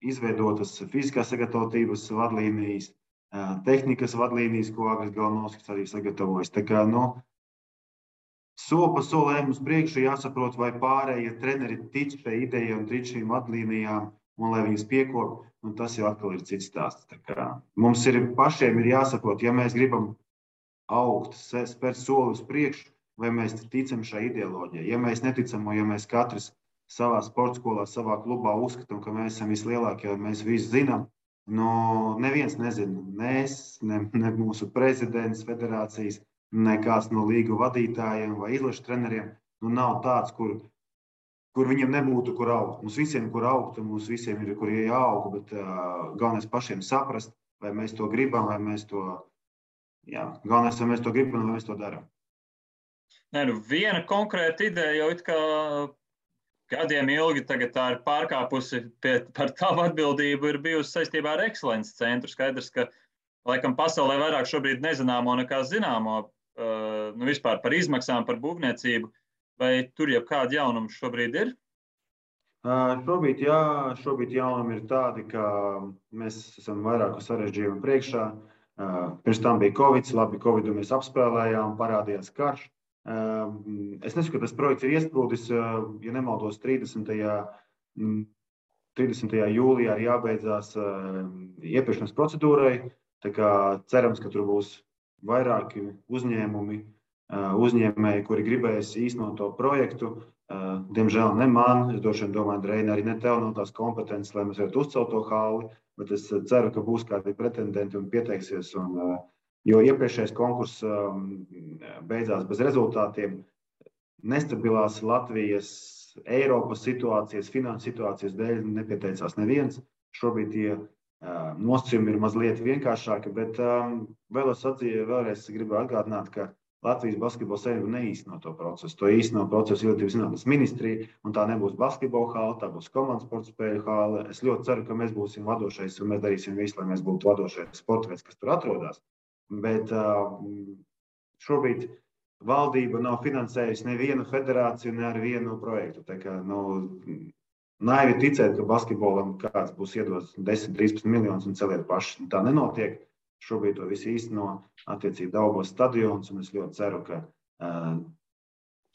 izveidotas fiziskās sagatavotības vadlīnijas, tehnikas vadlīnijas, ko Agris Galnovskis arī sagatavojas. Soli pa solēm uz priekšu jāsaprot, vai pārējie treneri tic šai idejai un tic šīm vadlīnijām, un lai viņas piekop, tas jau atkal ir cits stāsts. Mums pašiem ir jāsaprot, ja mēs gribam augt, spērt soli uz priekšu, vai mēs ticam šai ideoloģijai. Ja mēs neticam, ja mēs katrs savā sporta skolā, savā klubā uzskatām, ka mēs esam vislielākie, un mēs visu zinām, neviens nezina. Ne mūsu prezidents federācijas, ne kāds no līgu vadītājiem vai izlašu treneriem. Nav tāds, kur viņiem nebūtu, kur augt. Mums visiem, kur augt, un mums visiem ir, kur jāaug, bet galvenais pašiem saprast, vai mēs to gribam, vai mēs to, galvenais, vai mēs to gribam, vai mēs to darām. Viena konkrēta ideja jau it kā gadiem ilgi tagad tā ir pārkāpusi par tavu atbildību, ir bijusi saistībā ar Excellences centru. Skaidrs, ka laikam pasaulē vairāk šobrīd nezināmo nekā zināmo. vispār par izmaksām, par būvniecību, vai tur jau kādi jaunumi šobrīd ir? Šobrīd jaunumi ir tādi, ka mēs esam vairāku sarežģījumu priekšā. Pirms tam bija Covid, labi, Covidu mēs apspēlējām, parādījās karš. Es nesaku, ka tas projekts ir iesprūdis, ja nemaldos 30. jūlijā ir jābeidzās iepirkšanas procedūrai. Tā kā cerams, ka tur būs vairāki uzņēmēji, kuri gribēs īstenot to projektu. Diemžēl ne man, es droši vien domāju, Reina, arī ne tev nav tās kompetences, lai mēs varētu uzcelt to halli, bet es ceru, ka būs kādi pretendenti un pieteiksies. Jo iepriekšējais konkurss beidzās bez rezultātiem. Nestabilās Latvijas, Eiropas situācijas, finanses situācijas dēļ nepieteicās neviens. Šobrīd tie nosacījumi ir mazliet vienkāršāki, bet vēlreiz gribu atgādināt, ka Latvijas Basketbola Savienība neīsteno to procesu. To īsteno procesu Izglītības zinātnes ministrija, un tā nebūs basketbola hāle, tā būs komandas sporta spēļu hāle. Es ļoti ceru, ka mēs būsim vadošais, un mēs darīsim visu, lai mēs būtu vadošais sporta veids, kas tur atrodas. Bet šobrīd valdība nav finansējusi nevienu federāciju, ne ar vienu projektu. Tā kā, naivi ticēt, ka basketbolam kāds būs iedos 10-13 miljonus un celiet paši. Tā nenotiek. Šobrīd to visu īsteno attiecīgi Daugavas stadions, un es ļoti ceru, ka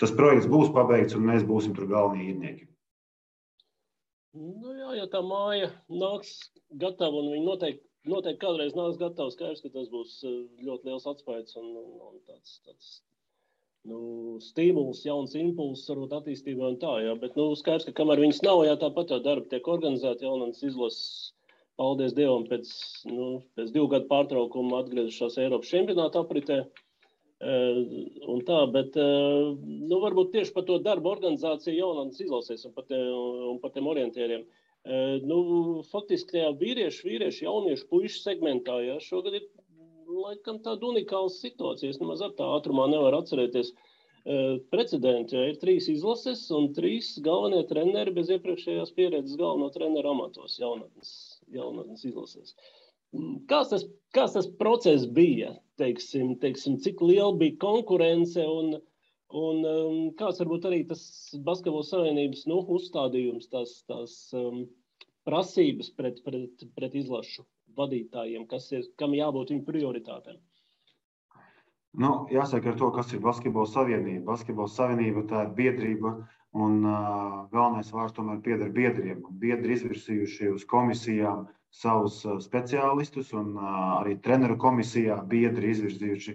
tas projekts būs pabeigts, un mēs būsim tur galvenie īrnieki. Ja tā māja nāks gatava, un viņi noteikti kādreiz nāks gatava, skaidrs, ka tas būs ļoti liels atspējas un tāds stimuls, jauns impulss, varbūt attīstībā un tā, jā. Bet skaidrs, ka kamēr viņas nav, tāpat jau darbi tiek organizēti, jaunas izlases. Paldies Dievam, pēc 2 gadu pārtraukuma atgriezušās Eiropas čempionāta apritē. Un tā, bet varbūt tieši par to darbu organizāciju jaunatnes izlasēs un par tiem orientieriem. Faktiski tajā vīriešu, jauniešu puišu segmentā, šogad ir laikam tāda unikāla situācija. Es nemaz ar tā ātrumā nevaru atcerēties precedenti. Ir 3 izlases un 3 galvenie treneri bez iepriekšējās pieredzes galveno treneru amatos jaunatnes izlasēs. Kāds tas process bija? Teiksim, cik liela bija konkurence un kāds varbūt arī tas Basketbola Savienības uzstādījums, tās prasības pret izlašu vadītājiem, kam jābūt viņu prioritātēm? Jāsaka ar to, kas ir Basketbola Savienība. Basketbola Savienība tā ir biedrība, un galvenais vārds tomēr pieder biedriem. Biedri izvirsījuši uz komisijām savus speciālistus, un arī treneru komisijā biedri izvirzījuši,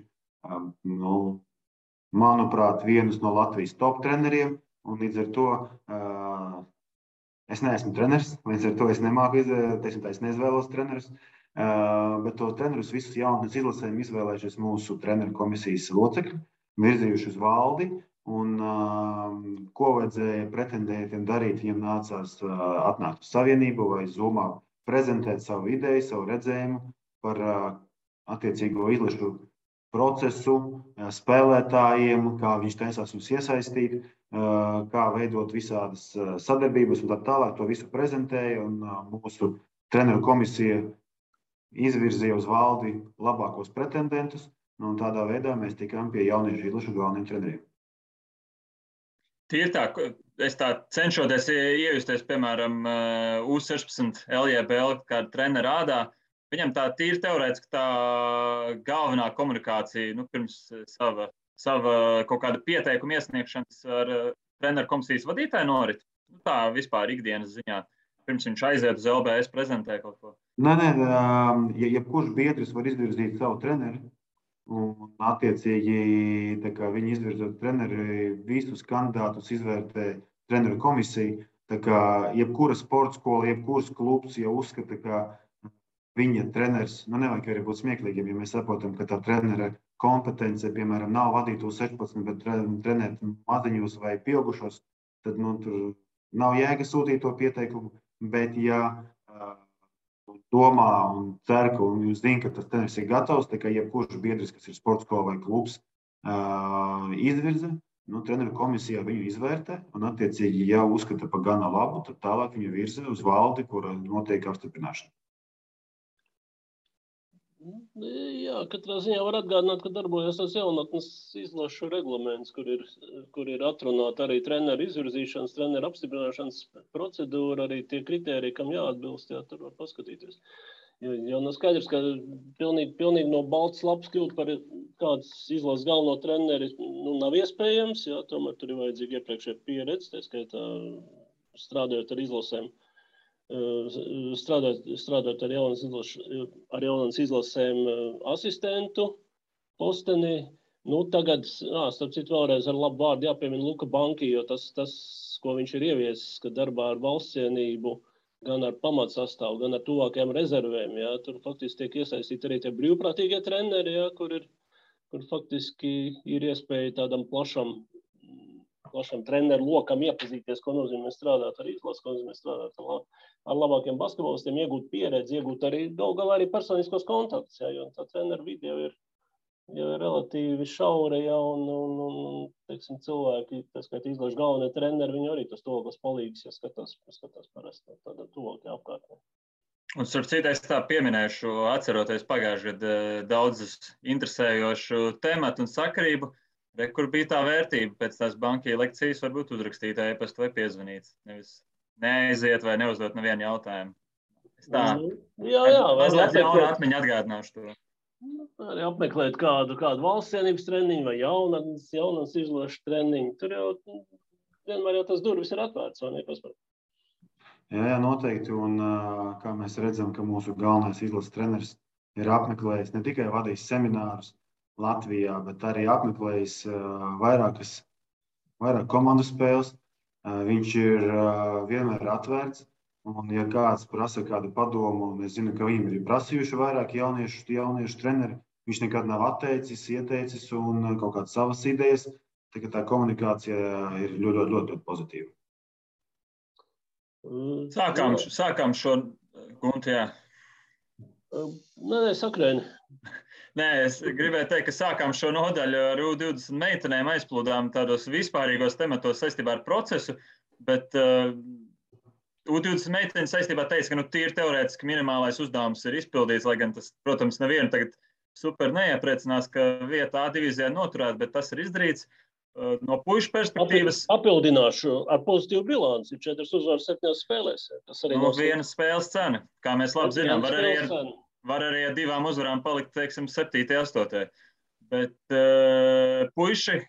manuprāt, vienus no Latvijas top treneriem. Un līdz ar to es neesmu treneris, līdz ar to es nemāku es neizvēlos trenerus. Bet to trenerus visus jaunatnes izlasēm izvēlējušies mūsu treneru komisijas locekļi, virzījuši uz valdi, un ko vajadzēja pretendētiem darīt, viņiem nācās atnākt uz Savienību vai Zoomā prezentēt savu ideju, savu redzējumu par attiecīgo izlašu procesu, spēlētājiem, kā viņš taisās viņus iesaistīt, kā veidot visādas sadarbības un tā tālāk. To visu prezentēja, un mūsu treneru komisija izvirzīja uz valdi labākos pretendentus, un tādā veidā mēs tikām pie jauniešu izlašu galveniem treneriem. Tīri tā, es tā cenšoties iejusties, piemēram, U16 LJBL kāda trenera ādā, viņam tā tīri teorētiski tā galvenā komunikācija, pirms sava kaut kāda pieteikuma iesniegšanas ar treneru komisijas vadītāju norit. Tā vispār ikdienas ziņā, pirms viņš aiziet uz LBS prezentē kaut ko. Nē, jebkurš biedrs var izvirzīt savu treneri. Un, attiecīgi, viņi izvirzot treneri, visus kandidātus izvērtē treneru komisija. Jebkura sporta skola, jebkuras klubs jau uzskata, ka viņa treneris, nevajag arī būt smieklīgiem, ja mēs saprotam, ka tā trenera kompetence, piemēram, nav vadīt U16, bet trenēt maziņos vai pieaugušos, tad tur nav jēga sūtīt to pieteikumu. Bet, ja domā un cer, un jūs zināt, ka tas treneris ir gatavs, tā kā jebkurš biedrs, kas ir sporta skola vai klubs, izvirza, treneru komisijā viņu izvērtē, un attiecīgi, ja uzskata par gana labu, tad tālāk viņu virza uz valdi, kura notiek apstiprināšana. Jā, katrā ziņā var atgādināt, ka darbojas tas jaunatnes izlašu reglaments, kur ir atrunāta arī treneru izvirzīšanas, treneru apstiprināšanas procedūra, arī tie kritēriji, kam jāatbilst, jā, tur var paskatīties. Jo nav skaidrs, ka pilnīgi no balts lapas kļūt par kāds izlases galveno treneri nav iespējams, jā, tomēr tur ir vajadzīga iepriekšēja pieredze, tā skaitā strādājot ar izlasēm. Strādāt ar jaunas izlasēm asistentu posteni. Tagad, starp citu, vēlreiz ar labu vārdu jāpiemina Luka Banki, jo tas, ko viņš ir ieviesis, ka darbā ar valsts cienību, gan ar pamatsastāvu, gan ar tuvākajām rezervēm, jā, tur faktiski tiek iesaistīti arī tie brīvprātīgie treneri, jā, kur faktiski ir iespēja tādam plašam treneru lokam iepazīties, ko nozīmē strādāt ar izlases, ko nozīmē strādāt ar labākiem basketbolistiem, iegūt pieredzi, iegūt arī galā arī personiskos kontaktus, jā, jo tā treneru vide jau ir relatīvi šaura, jā, un teiksim, cilvēki, tas, ka izlašu galvenie treneri, viņi arī tas tuvākos palīgs, ja skatās parasti tādā tuvākajā apkārtnē. Un starp citu, es tā pieminēšu, atceroties pagājušajā gadā daudzus interesējošu tematu un sakarību, kur bija tā vērtība pēc tās bankija lekcijas, varbūt uzrakstīt e-pastu vai piezvanīt. Nevis neaiziet vai neuzdot nevienu jautājumu. Es tā mazliet jaunu atmiņu atgādināšu to. Arī apmeklēt kādu valsts cienības treniņu vai jaunas izlašu treniņu. Tur jau vienmēr jau tas durvis ir atvērts, vai ne? Jā, noteikti. Un kā mēs redzam, ka mūsu galvenais izlases treneris ir apmeklējis ne tikai vadījis seminārus Latvijā, bet arī apmeklējis vairāk komandu spēles. Viņš ir vienmēr atvērts, un ja kāds prasa kādu padomu, un es zinu, ka viņam ir prasījuši vairāk jauniešu treneri, viņš nekad nav ieteicis un kaut kādas savas idejas, tā komunikācija ir ļoti pozitīva. Sākām šo guntu, jā. Nē, sakrēni. Nē, es gribēju teikt, ka sākām šo nodaļu ar U20 meitenēm, aizplūdām tādos vispārīgos tematos saistībā ar procesu, bet U20 meitenes saistībā teica, ka tīri teorētiski minimālais uzdevums ir izpildīts, lai gan tas, protams, nevienu tagad super neiepriecinās, ka vieta A divīzijā noturēt, bet tas ir izdarīts. No puišu perspektīvas. Papildināšu ar pozitīvu bilanci, 4 uzvaras 7 spēlēs. Tas arī viena spēles cena, kā mēs labi zinām, var arī ar 2 uzvarām palikt, teiksim, 7. 8. Bet puiši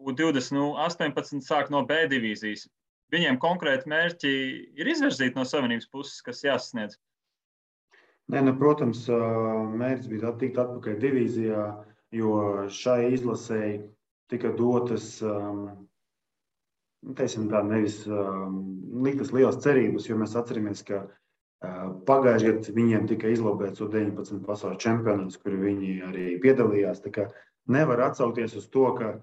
U20 18 sāk no B divīzijas. Viņiem konkrēti mērķi ir izvirzīti no Savienības puses, kas jāsasniedz? Nē, protams, mērķis bija tikt atpakaļ divīzijā, jo šai izlasēji tika dotas, teiksim tā, nevis liktas lielas cerības, jo mēs atceramies, ka pagājušajā gadā viņiem tika izlobēts U19 pasaules čempionāts, kur viņi arī piedalījās. Tā kā nevar atsaukties uz to, ka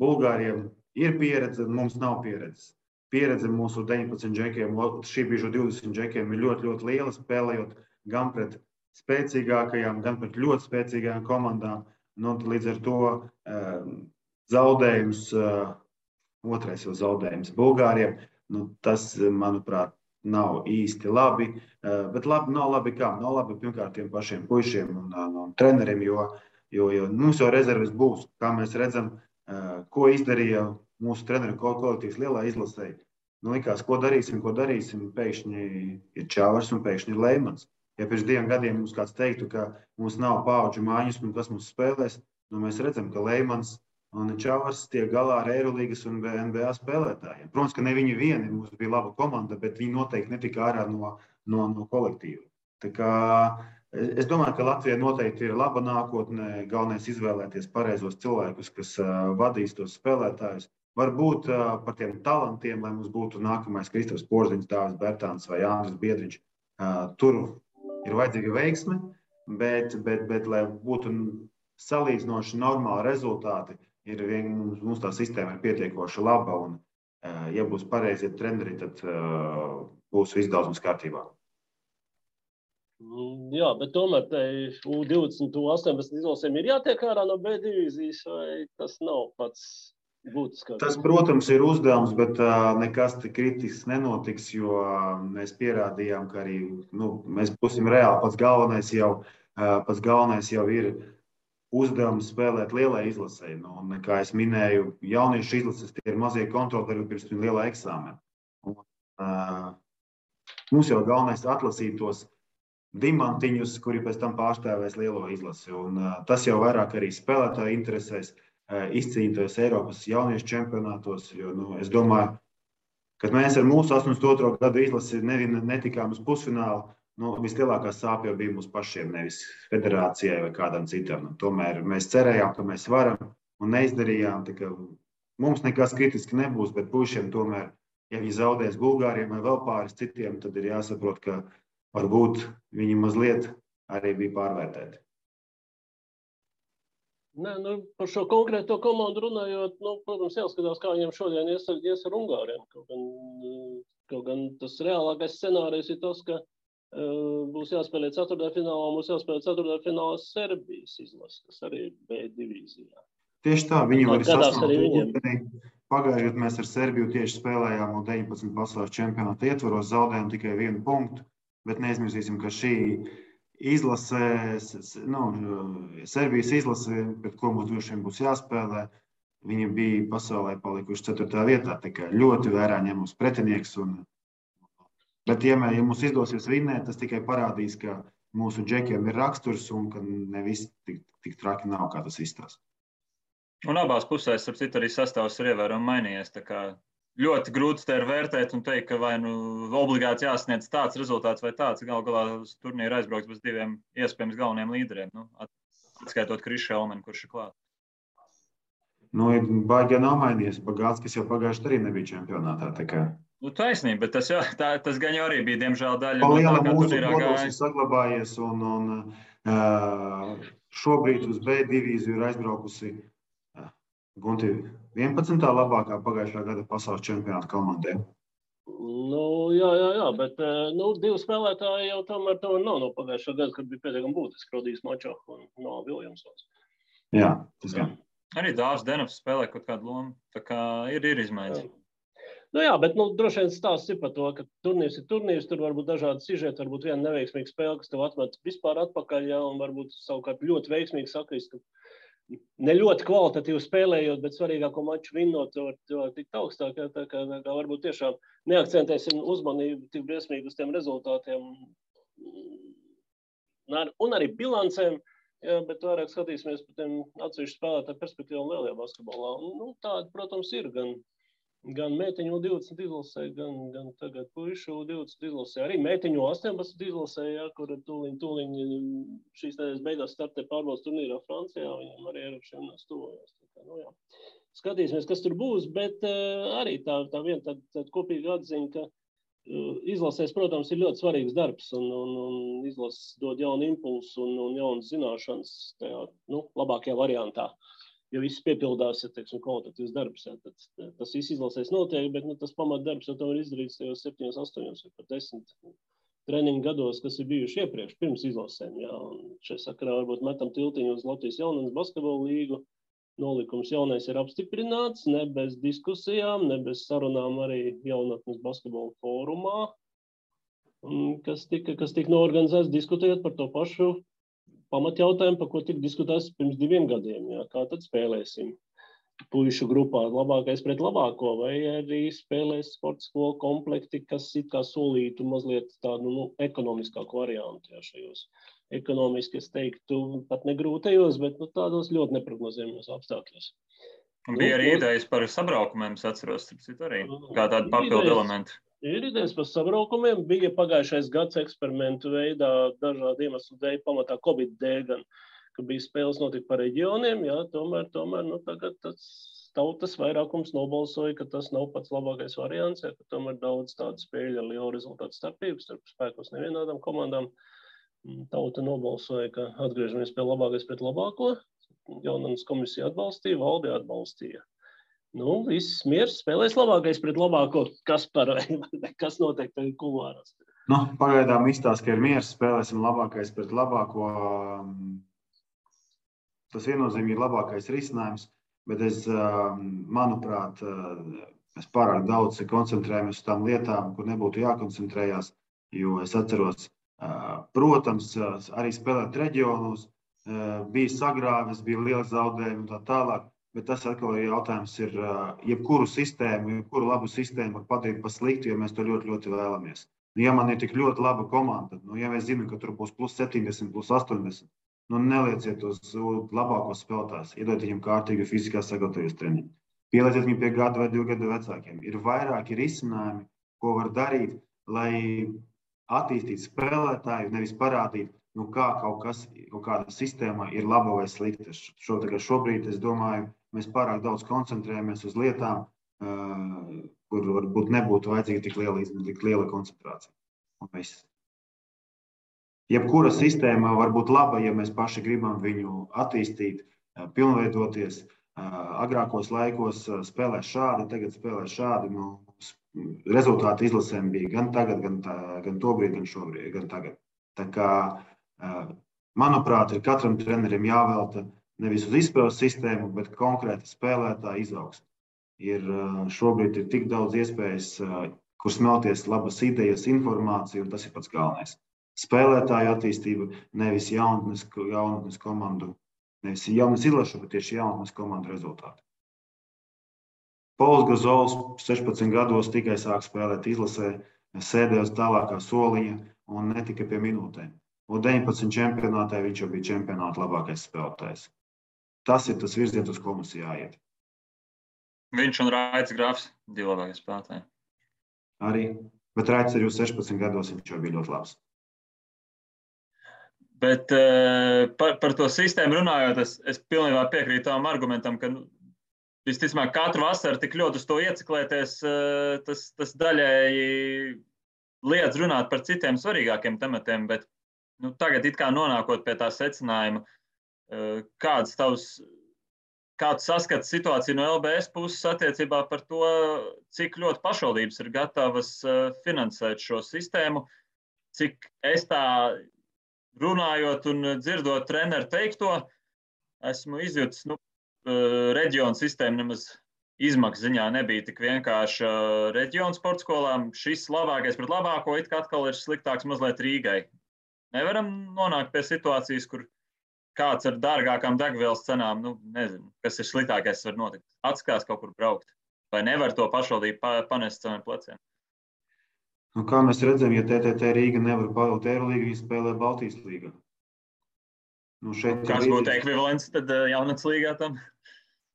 Bulgāriem ir pieredze, mums nav pieredzes. Pieredze mūsu 19 džekiem, šī brīža 20 džekiem ir ļoti liela, spēlējot gan pret spēcīgākajām, gan pret ļoti spēcīgajām komandām. Līdz ar to zaudējums, otrais jau zaudējums Bulgāriem, tas, manuprāt, nav īsti labi. Bet nav labi kā? Nav labi pirmkārt tiem pašiem puišiem un treneriem, jo mums jau rezerves būs. Kā mēs redzam, ko izdarīja mūsu treneru kolektīvs lielā izlasē. Likās, ko darīsim, pēkšņi ir Čavars un pēkšņi ir Leimans. Ja pirms 2 gadiem mums kāds teiktu, ka mums nav paudžu mājas un kas mums spēlēs, mēs redzam, ka Leimans un Čavars tiek galā ar Eirolīgas un NBA spēlētājiem. Protams, ka ne viņi vieni, mums bija laba komanda, bet viņi noteikti netika ārā no kolektīva. Tā kā es domāju, ka Latvijai noteikti ir laba nākotne, galvenais izvēlēties pareizos cilvēkus, kas vadīs tos spēlētājus. Varbūt par tiem talantiem, lai mums būtu nākamais Kristaps Porziņš, Dāvis Bērtāns vai Andris Biedriņš. Tur ir vajadzīga veiksme, bet lai būtu salīdzinoši normāli rezultāti, mums tā sistēma ir pietiekoši laba, un ja būs pareizie treneri, tad būs viss daudz mums kārtībā. Jā, bet tomēr U20, U18 izlasēm ir jātiek ārā no B divīzijas, vai tas nav pats būtiskākais? Tas, protams, ir uzdevums, bet nekas kritisks nenotiks, jo mēs pierādījām, ka arī mēs būsim reāli pats galvenais jau pats galvenais jau ir uzdevums spēlēt lielai izlasē. Nu, un, kā es minēju, jauniešu izlases tie ir mazie kontroli pirms lielā eksāmena. Mums jau galvenais atlasīt tos dimantiņus, kuri pēc tam pārstāvēs lielo izlasi. Un, tas jau vairāk arī spēlētāju interesēs izcīnītos Eiropas jauniešu čempionātos. Jo, es domāju, kad mēs ar mūsu 82. gadu izlasi netikām uz pusfinālu, vislielākā sāpe jau bija mums pašiem, nevis federācijai vai kādam citam. Tomēr mēs cerējām, ka mēs varam un neizdarījām. Mums nekas kritiski nebūs, bet puišiem tomēr, ja viņi zaudēs Bulgāriem vai vēl pāris citiem, tad ir jāsaprot, ka varbūt viņi mazliet arī bija pārvērtēti. Nē, par šo konkrēto komandu runājot, protams, jāskatās, kā viņiem šodien ies ar Ungāriem. Kaut gan tas reālākais scenārijs ir tas, ka būs jāspēlē ceturtdaļfinālā, būs jāspēlē ceturtdaļfinālā Serbijas izlase, kas arī ir B divīzijā. Tieši tā, viņi var sasniegt. Pagājušajā gadā mēs ar Serbiju tieši spēlējām un 19 pasaules čempionāta ietvaros, zaudējām tikai 1 punktu, bet neaizmirsīsim, ka šī izlase, Serbijas izlase, pret ko mums droši vien būs jāspēlē, viņi bija pasaulē palikuši 4. vietā, tā kā ļoti vērā ņemams pretinieks. Bet, ja mums izdosies vinnēt, tas tikai parādīs, ka mūsu džekiem ir raksturs un ka nevis tik traki nav, kā tas izstāsta. Un abās pusēs, starp citu, arī sastāvs ir ievērojami mainījies. Tā kā ļoti grūti te ir vērtēt un teikt, ka vai obligāti jāsniedz tāds rezultāts vai tāds. Galu galā uz turnīru aizbrauks bez 2 iespējams galveniem līderiem. Atskaitot Krišu Elmeni, kurš ir klāt. Baigi nav mainījies. Bagātskis jau pagājuši arī nebija čempionātā. Taisnība, bet tas gan jau arī bija, diemžēl, daļa no tā, kā turnīrā gāja. Ir saglabājies un šobrīd uz B divīziju ir aizbraukusi Gunti 11. labākā pagājušā gada pasaules čempionāta komandē. Jā, bet 2 spēlētāji jau tomēr nav no pagājušā gada, kad bija pietiekami būtiski Rodijs Mačo un Noa Viljamsons. Jā, tas gan. Arī Dāvs Denofs spēlē kaut kādu lomu, tā kā ir izmaiņas. Jā, bet droši vien stāsts ir par to, ka turnīrs ir turnīrs, tur var būt dažādi sižeti, varbūt viena neveiksmīga spēle, kas tev atmet vispār atpakaļ, un varbūt savukārt ļoti veiksmīgi sakrist, ka ne ļoti kvalitatīvi spēlējot, bet svarīgāko maču vinnot, to var tikt augstāk, tā kā varbūt tiešām neakcentēsim uzmanību tik briesmīgi uz tiem rezultātiem un arī bilancēm, bet vairāk skatīsimies par tiem atsevišķu spēlētāju perspektīvām lielajā basketbolā. Tāda, protams, ir gan meitiņu 20 izlasē, gan tagad puišu 20 izlasē, arī meitiņu 18 izlasē, kur tūliņ šīs nedēļas beigās startē pārbaudas turnīrā Francijā, viņam arī Eiropas čempionāts tuvojas. Skatīsimies, kas tur būs, bet arī tā viena tāda kopīga atziņa, ka izlasēs, protams, ir ļoti svarīgs darbs un izlases dod jaunu impulsu un jaunas zināšanas tajā, labākajā variantā. Ja viss piepildās, kvalitatīvs darbs, tad tas viss izlasēs notiek, bet tas pamatdarbs jau tomēr izdarīts tajos 7, 8 vai pat 10 treniņu gados, kas ir bijuši iepriekš, pirms izlasēm. Šajā sakarā varbūt metam tiltiņu uz Latvijas jaunatnes basketbola līgu. Nolikums jaunais ir apstiprināts, ne bez diskusijām, ne bez sarunām arī jaunatnes basketbola fórumā, kas tika noorganizēts diskutējot par to pašu pamatjautājumu, par ko tika diskutēts pirms 2 gadiem. Kā tad spēlēsim puišu grupā labākais pret labāko, vai arī spēlēs sporta skolu komplekti, kas it kā solītu mazliet tādu ekonomiskāku variantu šajos. Ekonomiski, es teiktu, pat negrūtajos, bet tādos ļoti neprognozējumos apstākļos. Bija arī idejas par sabraukumiem, es atceros, arī kā tādu papildu elementu. Ir idejas par sabraukumiem, bija pagājušais gads eksperimentu veidā, dažādu iemeslu dēļ, pamatā Covid dēļ, gan, ka bija spēles notika par reģioniem, tomēr tagad tas tautas vairākums nobalsoja, ka tas nav pats labākais variants, ka tomēr daudz tādu spēļu ar lielu rezultātu starpības, starp spēkos nevienādām komandām. Tauta nobalsoja, ka atgriežamies pie labākais pret labāko, jaunatnes komisija atbalstīja, valde atbalstīja. Viss miers, spēlēs labākais pret labāko, kas notiek tagad kulvārās. Pagaidām izstāsta, ka ir miers, spēlēsim labākais pret labāko. Tas viennozīmīgi ir labākais risinājums, bet manuprāt, mēs pārāk daudz koncentrējamies uz tām lietām, kur nebūtu jākoncentrējās, jo es atceros Protams, arī spēlēt reģionos, bija sagrāves, bija liela zaudējuma un tā tālāk, bet tas atkal jautājums ir, jebkuru sistēmu, jebkuru labu sistēmu var padarīt par sliktu, jo mēs to ļoti, ļoti vēlamies. Ja man ir tik ļoti laba komanda, ja mēs zinām, ka tur būs plus 70, plus 80, nelieciet uz labākos spēlētājus, iedodiet viņiem kārtīgi fiziskā sagatavoties treniņu. Pielieciet viņu pie gada vai 2 gadu vecākiem. Ir vairāki risinājumi, ko var darīt, lai attīstītu spēlētāju, nevis parādīt, kā kaut kāda sistēma ir laba vai slikta. Šobrīd, es domāju, mēs pārāk daudz koncentrējamies uz lietām, kur varbūt nebūtu vajadzīga tik liela koncentrācija. Jebkura sistēma var būt laba, ja mēs paši gribam viņu attīstīt, pilnveidoties. Agrākos laikos spēlē šādi, tagad spēlē šādi. Rezultāti izlasēm bija gan tagad, gan tobrīd, gan šobrīd, gan tagad. Tā kā, manuprāt, ir katram trenerim jāvelta nevis uz izspēles sistēmu, bet konkrēta spēlētāja izaugsme. Šobrīd ir tik daudz iespējas, kur smelties labas idejas, informācija, un tas ir pats galvenais. Spēlētāju attīstība, nevis jaunatnes komandu. Nevis jaunas izlašu, bet tieši jaunatnes komandu rezultāti. Pols Gazols 16 gados tikai sāk spēlēt izlasē, sēdēja uz tālākā soliņa un netika pie minūtēm. Un 19 čempionātē viņš jau bija čempionāta labākais spēlētājs. Tas ir tas virziens, uz ko mums jāiet. Viņš un Raits Grafs, 2 labākie spēlētāji. Arī, bet Raits arī uz 16 gados viņš jau bija ļoti labs. Bet par to sistēmu runājot, es pilnībā piekrītu tam argumentam, ka visticamāk katru vasaru tik ļoti uz to ieciklēties, tas daļēji liedz runāt par citiem svarīgākiem tematiem, bet tagad it kā nonākot pie tā secinājuma, kāds saskats situāciju no LBS puses attiecībā par to, cik ļoti pašvaldības ir gatavas finansēt šo sistēmu, cik es tā runājot un dzirdot treneru teikto, esmu izjutis, reģionu sistēma nemaz izmaksu ziņā nebija tik vienkārši reģionu sporta skolām. Šis labākais pret labāko it kā atkal ir sliktāks mazliet Rīgai. Nevaram nonākt pie situācijas, kur kāds ar dārgākām degvielas cenām, nezinu, kas ir sliktākais var notikt. Atskās kaut kur braukt. Vai nevar to pašvaldību panest saviem pleciem? Kā mēs redzam, ja TTT Rīga nevar pavilkt Eirolīgu, viņi spēlē Baltijas līgā. Kas būtu ekvivalents tad jaunatnes līgā tam?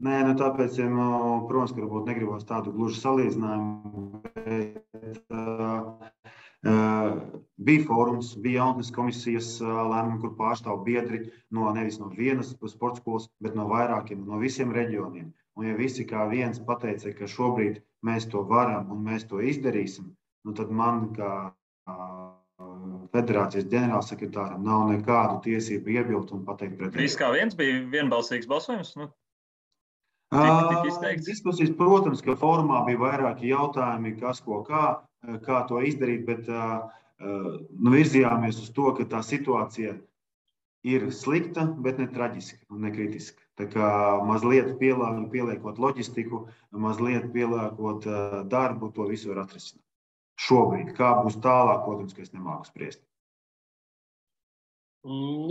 Nē, tāpēc, protams, ka varbūt negribos tādu gluži salīdzinājumu, bet bija fórums, bija jaunatnes komisijas lēmumi, kur pārstāv biedri nevis no vienas sporta skolas, bet no vairākiem, no visiem reģioniem. Un ja visi kā viens pateica, ka šobrīd mēs to varam un mēs to izdarīsim, tad man, kā federācijas ģenerālsekretāram, nav nekādu tiesību iebilst un pateikt pretēji. Viss kā viens bija vienbalsīgs balsojums? Diskusijas, protams, ka formā bija vairāki jautājumi, kas ko kā to izdarīt, bet virzījāmies uz to, ka tā situācija ir slikta, bet ne traģiska un ne kritiska. Tā kā mazliet pieliekot loģistiku, mazliet pieliekot darbu, to visu var atrisināt. Šobrīd, kā būs tālāk, protams, ka es nemāku spriest.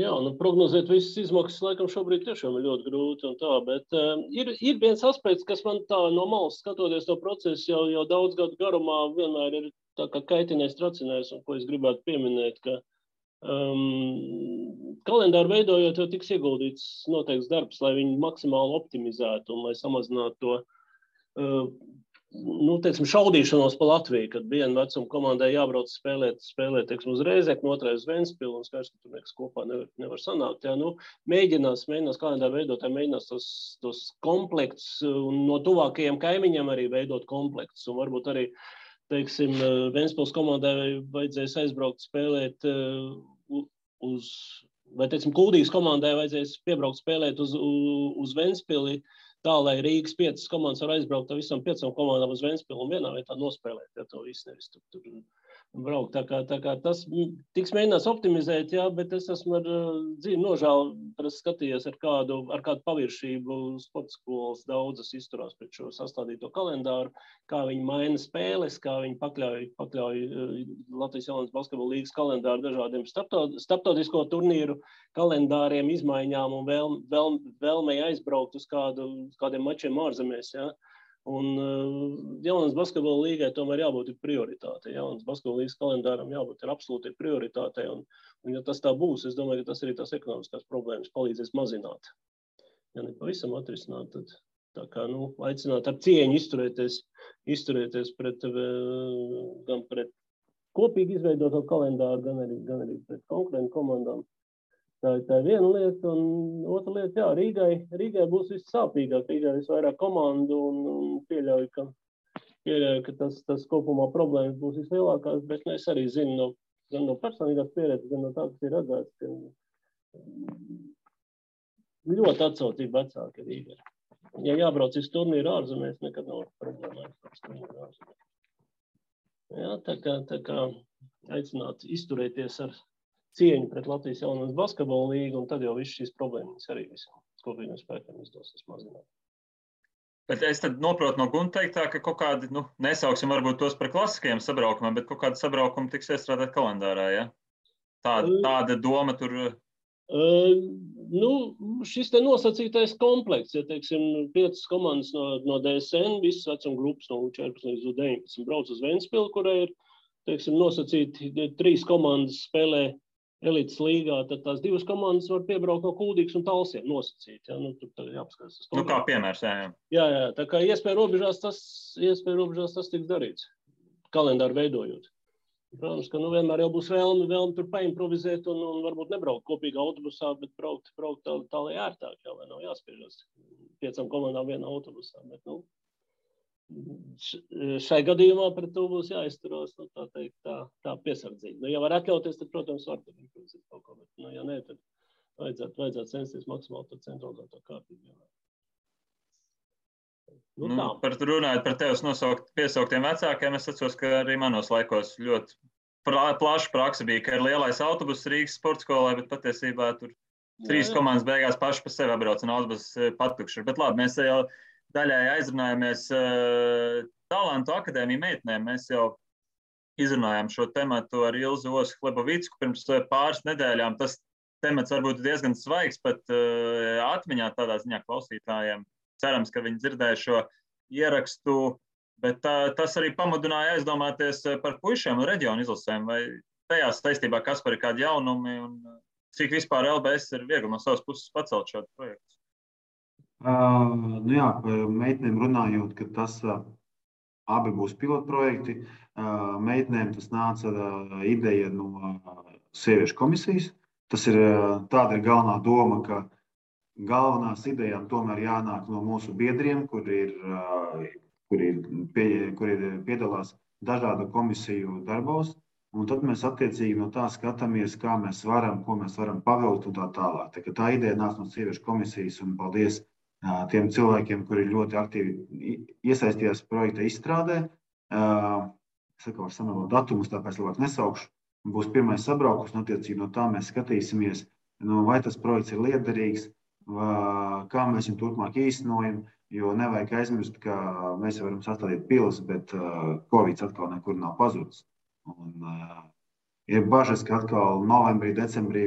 Jā, prognozēt visas izmaksas laikam šobrīd tiešām ir ļoti grūti un tā, bet ir viens aspekts, kas man tā no malas skatoties to procesu jau daudz gadu garumā vienmēr ir tā kā kaitinājis, tracinājis, un ko es gribētu pieminēt, ka kalendāru veidojot jau tiks ieguldīts noteikts darbs, lai viņu maksimāli optimizētu un lai samazinātu to šaudīšanos pa Latviju, kad viena vecuma komandai jābrauc spēlēt uz Rēzekni, otrai uz Ventspili, un skaidrs, ka tur nekas kopā nevar sanākt. Jā, mēģinās kalendāru veidotāji, mēģinās tos komplektus, un no tuvākajiem kaimiņiem arī veidot komplektus, un varbūt arī, teiksim, Ventspils komandai vajadzēs aizbraukt spēlēt vai, teiksim, Kuldīgas komandai vajadzēs piebraukt spēlēt uz Ventspili, tā, lai Rīgas 5 komandas var aizbraukt ar visam 5 komandām uz Ventspili un vienā vietā nospēlēt, ja to visu nevis tur braukt. Tā kā tas tiks mēģināts optimizēt, jā, bet es esmu ar dzīvi nožēlu, skatījies ar kādu paviršību sporta skolas daudzas izturās pret šo sastādīto kalendāru, kā viņi maina spēles, kā viņi pakļauj Latvijas jaunas basketbola līgas kalendāru dažādiem starptautisko turnīru kalendāriem, izmaiņām un vēlmei aizbraukt uz kādiem mačiem ārzemēs, jā. Un jaunas basketbola līgai tomēr jābūt prioritātei. Jaunas basketbola līgas kalendāram jābūt absolūti prioritātei. Un ja tas tā būs, es domāju, ka tas arī tās ekonomiskās problēmas palīdzēs mazināt. Ja ne pavisam atrisināt, tad tā kā, aicināt ar cieņu izturēties gan pret kopīgi izveidoto kalendāru, gan arī pret konkurentu komandām. Tā ir viena lieta, un otra lieta, jā, Rīgai būs vissāpīgāk, Rīgai visvairāk komandu, un pieļauju, ka tas kopumā problēmas būs vislielākās, bet es arī zinu gan no personīgās pieredzes, gan no tā, kas ir redzēts, ka ļoti atsaucība vecāki Rīgai. Ja jābrauc uz turnīru ārzemēs, nekad nav problēma aizbrauc turnīru ārzemēs. Jā, tā kā aicināt izturēties ar cieņu pret Latvijas jaunas basketbola līgu, un tad jau viss šīs problēmas arī visam kopīgiem spēkiem izdosies mazināt. Bet es tad noprotu no Gunta teiktā, ka kaut kādi, nesauksim varbūt tos par klasiskajiem sabraukumiem, bet kaut kādi sabraukumi tiks iestrādāt kalendārā, ja? Tāda doma tur... Šis te nosacītais komplekts, ja teiksim 5 komandas no DSN, visas vecuma grupas no 14 līdz 19 brauc uz Ventspilu, kurai ir, teiksim, nosacīti 3 komandas spēlē elites līgā, tad tās 2 komandas var piebraukt no Kuldīgas un Talsiem nosacīt. Ja? Tur jāpaskatās. Kā piemērs, jā. Jā, tā kā iespēja robežās tas tiks darīts, kalendāru veidojot. Protams, ka vienmēr jau būs vēlme tur paimprovizēt un varbūt nebraukt kopīgā autobusā, bet braukt tā lai ērtāk, jā, lai nav jāspiežas 5 komandām vienā autobusā. Bet, šai gadījumā pret to būs jāizturās, tā piesardzīgi. Ja var atļauties, tad, protams, var tur improvizēt kaut ko, bet, ja nē, tad vajadzētu censties maksimāli to centralizēto kārtību. Runājot par tevis piesauktiem vecākiem, es atceros, ka arī manos laikos ļoti plaša praksa bija, ka ir lielais autobus Rīgas sporta skolai, bet patiesībā tur 3 komandas beigās paši pa sevi atbrauc un autobus patukši. Bet labi, mēs jau daļai aizrunājamies Talantu akadēmiju meitenēm. Mēs jau izrunājām šo tematu ar Ilzu Osu-Klebovicku pirms pāris nedēļām. Tas temats varbūt diezgan svaigs, pat atmiņā tādā ziņā klausītājiem. Cerams, ka viņi dzirdēja šo ierakstu, bet tas arī pamudināja aizdomāties par puišiem un reģionu izlasēm. Vai tajā saistībā, kas par kādu jaunumi un cik vispār LBS ir viegli no savas puses pacelt šādu projektu? Par meitenēm runājot, ka tas abi būs pilotprojekti. Meitenēm tas nāca ideja no sieviešu komisijas. Tāda ir galvenā doma, ka galvenās idejām tomēr jānāk no mūsu biedriem, kuri piedalās dažādu komisiju darbos. Un tad mēs attiecīgi no tā skatāmies, kā mēs varam, ko mēs varam pavilkt un tā tālāk. Tā ideja nāca no sieviešu komisijas un paldies tiem cilvēkiem, kuri ļoti aktīvi iesaistījās projekta izstrādē. Es var samalot datumus, tāpēc labāk nesaukšu. Būs pirmais sabraukums, un attiecīgi no tā mēs skatīsimies, vai tas projekts ir liederīgs, kā mēs viņu turpmāk īstenojam, jo nevajag aizmirst, ka mēs varam sastādīt pilis, bet Covid atkal nekur nav pazudis. Ir bažas, ka atkal novembrī, decembrī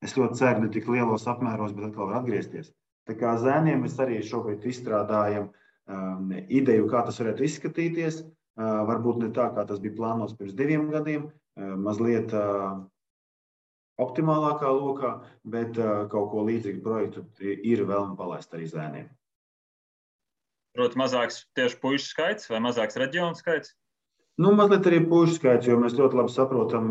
es ļoti ceru, ne tik lielos apmēros, bet atkal var atgriezties. Tā kā zēniem mēs arī šobrīd izstrādājam ideju, kā tas varētu izskatīties. Varbūt ne tā, kā tas bija plānots pirms 2 gadiem, mazliet optimālākā lokā, bet kaut ko līdzīgu projektu ir vēlme palaist arī zēniem. Proti mazāks tieši puišu skaits vai mazāks reģionu skaits? Mazliet arī puišu skaits, jo mēs ļoti labi saprotam,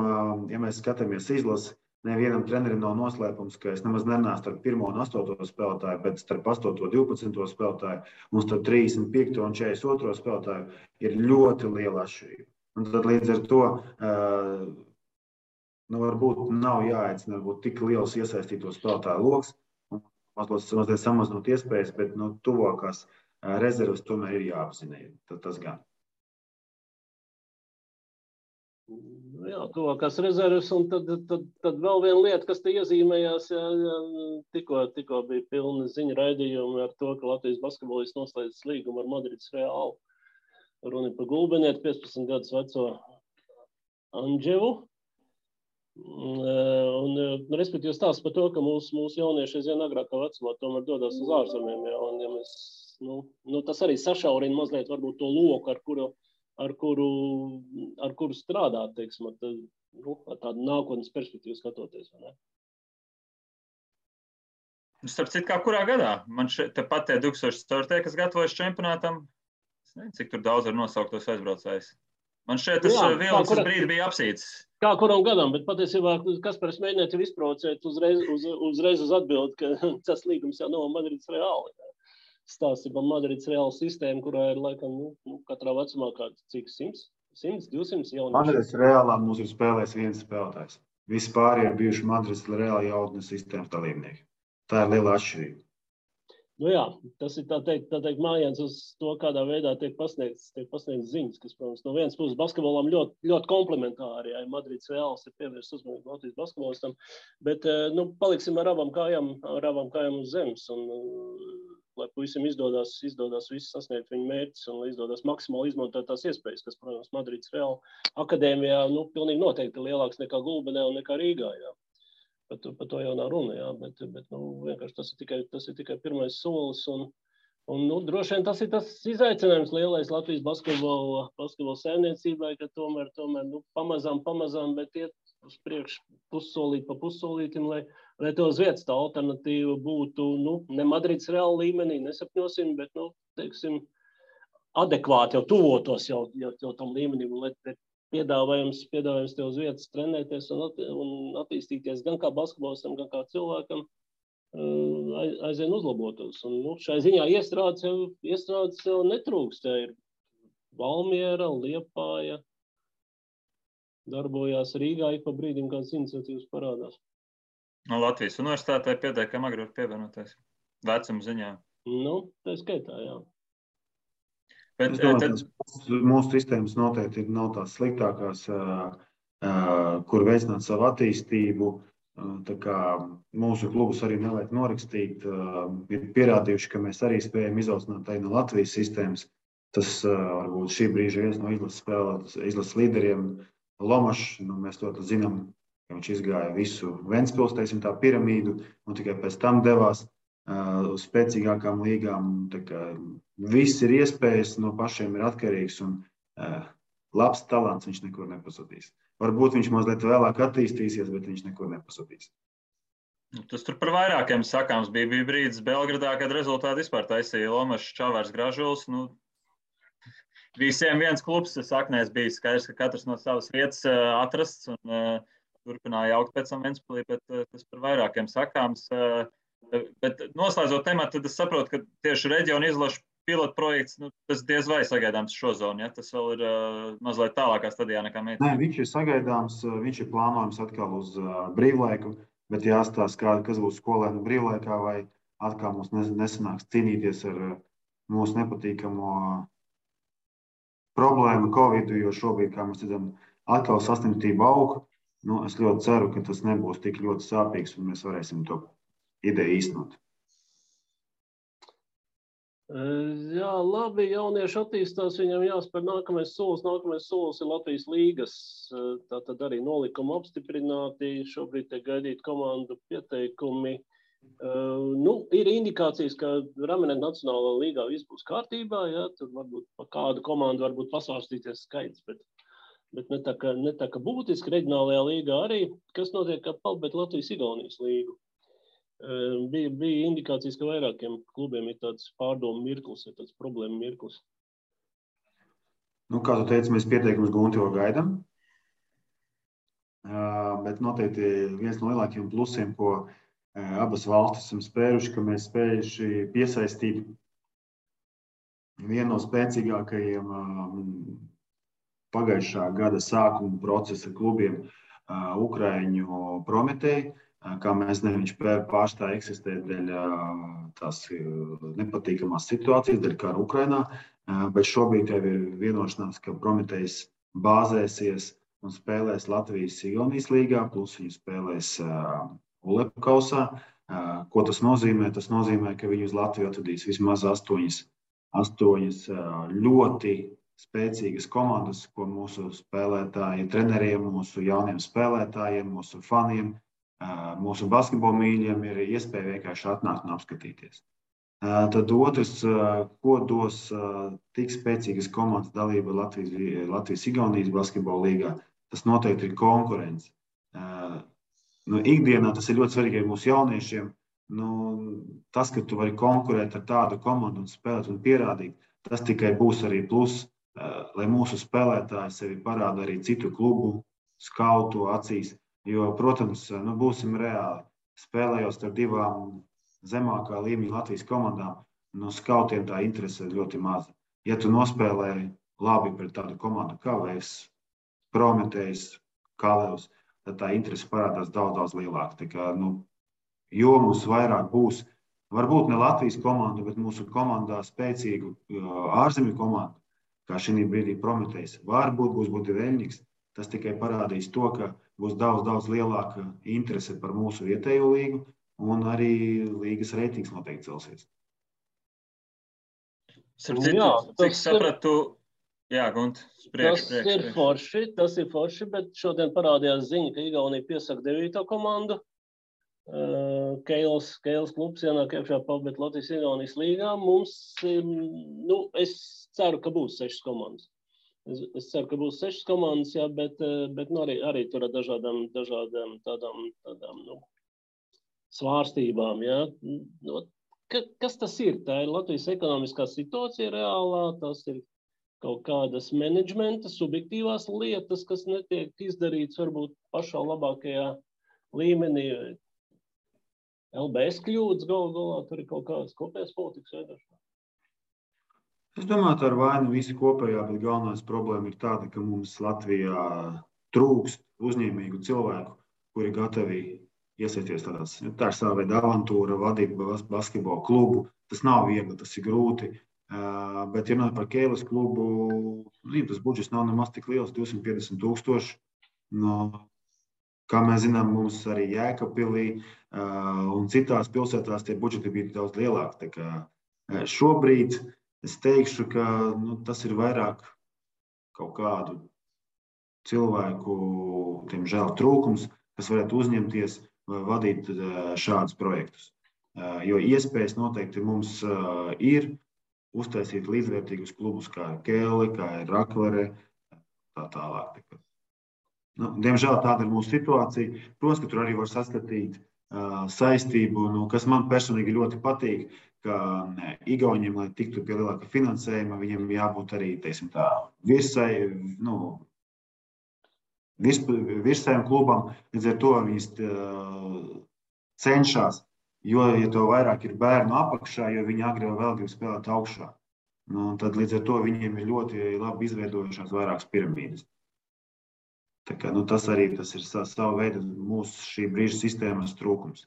ja mēs skatāmies izlasi, nevienam trenerim nav noslēpums, ka es nemaz nenācu starp 1. un 8. spēlētāju, bet starp 8. un 12. spēlētāju un starp 35. un 42. spēlētāju ir ļoti liela atšķirība. Un tad līdz ar to varbūt nav jāaicina tik liels iesaistīto spēlētāju loks, un mazliet samazinot iespējas, bet tuvākās rezerves tomēr ir jāapzinē. Tas gan. Jā, tuvākās rezerves, un tad vēl viena lieta, kas te iezīmējās, tikko bija pilna ziņa raidījumi ar to, ka Latvijas basketbolists noslēdz līgumu ar Madrides Realu. Runa par Gulbenieti, 15 gadus veco Andževu. Respektīvi stāsts par to, ka mūsu jaunieši aizvien agrākā vecumā tomēr dodas uz ārzemēm. Ja, un ja mēs, tas arī sašaurina mazliet varbūt to loku, ar kuru strādāt, teiksim, ar tādu nākotnes perspektīvu skatoties. Vai ne? Starp citu, kā kurā gadā? Man tepat tie 2004. kas gatavojas čempionātam, es nezinu, cik tur daudz var nosaukt tos aizbraucējus. Man šeit tas vilnis brīdi bija apsīts. Kā kuram gadam, bet patiesībā Kaspars mēģināja tev izprovocēt uzreiz uz atbildi, ka tas līgums jau nav Madrides Reāli. Stāsti par Madrides Reāli sistēmu, kurā ir laikam katrā vecumā kāds cik 100, 200 jaunieši. Madrides Reālā mums ir spēlējis viens spēlētājs. Visi pārējie ir bijuši Madrides Reāli jautnes sistēmas dalībnieki. Tā ir liela atšķirība. Jā, tas ir tā teikt mājiens uz to, kādā veidā tiek pasniegts ziņas, kas, protams, no vienas puses basketbolam ļoti komplementāri, ja Madrides Reāls ir pievērsts uzmanību Latvijas basketbolistam, bet, paliksim ar abām kājām uz zemes, un, lai puisim izdodas viss sasniegt viņu mērķis, un lai izdodas maksimāli izmantot tās iespējas, kas, protams, Madrides Reāla akadēmijā, pilnīgi noteikti lielāks nekā Gulbenē un nekā Rīgā, jā. Par to jau nav runa, jā, bet vienkārši tas ir tikai pirmais solis, un droši vien tas ir tas izaicinājums lielais Latvijas basketbola saimniecībai, ka tomēr pamazām, bet iet uz priekšu pussolīt pa pussolītim, lai to uz vietas tā alternatīva būtu, ne Madrides Reāla līmenī, nesapņosim, bet, teiksim, adekvāti jau tuvotos jau tam līmenim, lai piedāvājums tev uz vietas trenēties un attīstīties gan kā basketbolistam, gan kā cilvēkam aizvien uzlabotos. Un, šai ziņā iestrādes jau netrūkst. Tā ir Valmiera, Liepāja, darbojās Rīgā, ik pa brīdim kādas iniciatīvas parādās. No Latvijas universitātē pietiekami agri var pievienoties vecuma ziņā. Tā skaitā, jā. Bet, mūsu sistēmas noteikti nav tās sliktākās, kur veicināt savu attīstību. Tā kā mūsu klubus arī nevajag norakstīt. Ir pierādījuši, ka mēs arī spējam izaudzināt arī no Latvijas sistēmas. Tas varbūt šī brīža viens no izlases līderiem Lomašs. Mēs to zinām, ka viņš izgāja visu Ventspils, teiksim, tā piramīdu, un tikai pēc tam devās uz spēcīgākām līgām. Viss ir iespējas, no pašiem ir atkarīgs, un labs talants viņš nekur nepazudīs. Varbūt viņš mazliet vēlāk attīstīsies, bet viņš nekur nepazudīs. Tas tur par vairākiem sakāms bija brīdis Belgradā, kad rezultāti vispār taisīja Lomašs, Čavars, Gražuls. Visiem viens klubs saknēs bija skaidrs, ka katrs no savas vietas atrasts un turpināja augt pēc tam Ventspilī, bet tas par vairākiem sakāms. Bet noslēdzot tematu, tad es saprotu, ka tieši reģiona izlašu pilotprojekts, tas diez vai sagaidāms šo zonu, ja? Tas vēl ir mazliet tālākā stadijā nekā mēs. Nē, viņš ir sagaidāms, viņš ir plānojams atkal uz brīvlaiku, bet jāstāsta, kas būs skolēnu brīvlaikā, vai atkal mums nesanāks cīnīties ar mūsu nepatīkamo problēmu Covidu, jo šobrīd, kā mēs redzam, atkal saslimtība aug. Es ļoti ceru, ka tas nebūs tik ļoti sāpīgs, un mēs varēsim to ideju īstenot. Jā, labi, jaunieši attīstās, viņam jāspēr nākamais solis ir Latvijas līgas, tātad arī nolikuma apstiprināti, šobrīd tiek gaidīt komandu pieteikumi. Ir indikācijas, ka Ramenet Nacionālā līgā viss būs kārtībā, ja, tur varbūt pa kādu komandu varbūt pasvārstīties skaits, bet ne tā kā būtiski reģionālajā līgā arī, kas notiek kā palbēt Latvijas-Igaunijas līgu. Bija indikācijas, ka vairākiem klubiem ir tāds pārdomu mirklis, ir tāds problēma mirklis. Kā tu teici, mēs pieteikumus Gunti vēl gaidām, bet noteikti viens no lielākiem plusiem, ko abas valstis esam spēruši, ka mēs spējuši piesaistīt vienu no spēcīgākajiem pagājušā gada sākuma procesa klubiem Ukraiņu Prometei. Kā mēs zinām, viņš pārstāja eksistēt dēļ tās nepatīkamās situācijas, dēļ kara Ukrainā, bet šobrīd jau ir vienošanās, ka Prometejs bāzēsies un spēlēs Latvijas-Igaunijas līgā, plus viņi spēlēs ULEP kausā. Ko tas nozīmē? Tas nozīmē, ka viņi uz Latviju atvedīs vismaz 8 ļoti spēcīgas komandas, ko mūsu spēlētāji, treneriem, mūsu jauniem spēlētājiem, mūsu faniem, mūsu basketbola mīļiem ir iespēja vienkārši atnākt un apskatīties. Tad otrs, ko dos tik spēcīgas komandas dalība Latvijas-Igaunijas basketbola līgā, tas noteikti ir konkurence. Ikdienā tas ir ļoti svarīgi mūsu jauniešiem. Tas, ka tu vari konkurēt ar tādu komandu un spēlēt un pierādīt, tas tikai būs arī plus, lai mūsu spēlētāji sevi parāda arī citu klubu, skautu acīs. Jo, protams, būsim reāli. Spēlējot ar divām zemākā līmeņa Latvijas komandām, skautiem tā interese ir ļoti maza. Ja tu nospēlēji labi pret tādu komandu kā Vēs, Prometējs, Kalevs, tad tā interese parādās daudz lielāka. Tā kā, jo mums vairāk būs, varbūt ne Latvijas komandu, bet mūsu komandā spēcīgu ārzemju komandu, kā šī brīdī Prometējs, varbūt būs Budiveļņiks, tas tikai parādīs to, ka būs daudz lielāka interese par mūsu vietējo līgu, un arī līgas reitings noteikti celsies. Cik sapratu, jā, Gunt, priekš. Tas ir forši, bet šodien parādījās ziņa, ka Igaunija piesaka 9. komandu. Keils klubs ienāk iekšā pabēt Latvijas-Igaunijas līgā. Mums, es ceru, ka būs 6 komandas. Es ceru, ka būs 6 komandas, jā, bet arī tur ar dažādām tādām svārstībām. Jā. Kas tas ir? Tā ir Latvijas ekonomiskā situācija reālā, tas ir kaut kādas menedžmenta, subjektīvās lietas, kas netiek izdarīts varbūt pašā labākajā līmenī. LBS kļūdas galā, tur ir kaut kādas kopējas politikas veidošanā. Es domāju, tā ir vaina visi kopējā, bet galvenais problēma ir tāda, ka mums Latvijā trūkst uzņēmīgu cilvēku, kuri gatavi iesaisties tādās. Tā ir sava veida avantūra, vadīt basketbola klubu. Tas nav viegli, tas ir grūti. Bet, ja runājot par Keilas klubu, tas budžets nav nemaz tik liels, 250 000. Kā mēs zinām, mums arī Jēkabpilī un citās pilsētās tie budžeti bija daudz lielāki. Tā kā šobrīd es teikšu, ka tas ir vairāk kaut kādu cilvēku, diemžēl, trūkums, kas varētu uzņemties vai vadīt šādus projektus. Jo iespējas noteikti mums ir uztaisīt līdzvērtīgus klubus, kā ir Keile, kā ir Raklere, tā tālāk. Diemžēl tāda ir mūsu situācija. Protams, ka tur arī var saskatīt saistību, kas man personīgi ļoti patīk, ka Igauniem, lai tiktu pie lielāka finansējuma, viņiem jābūt arī, teiksim tā, virsējiem klubam, līdz ar to viņas cenšas, jo, ja to vairāk ir bērnu apakšā, jo viņi agri vēl grib spēlēt augšā. Tad līdz ar to viņiem ir ļoti labi izveidojušās vairākas piramīdas. Tā kā, tas ir sava veida mūsu šī brīža sistēmas trūkums.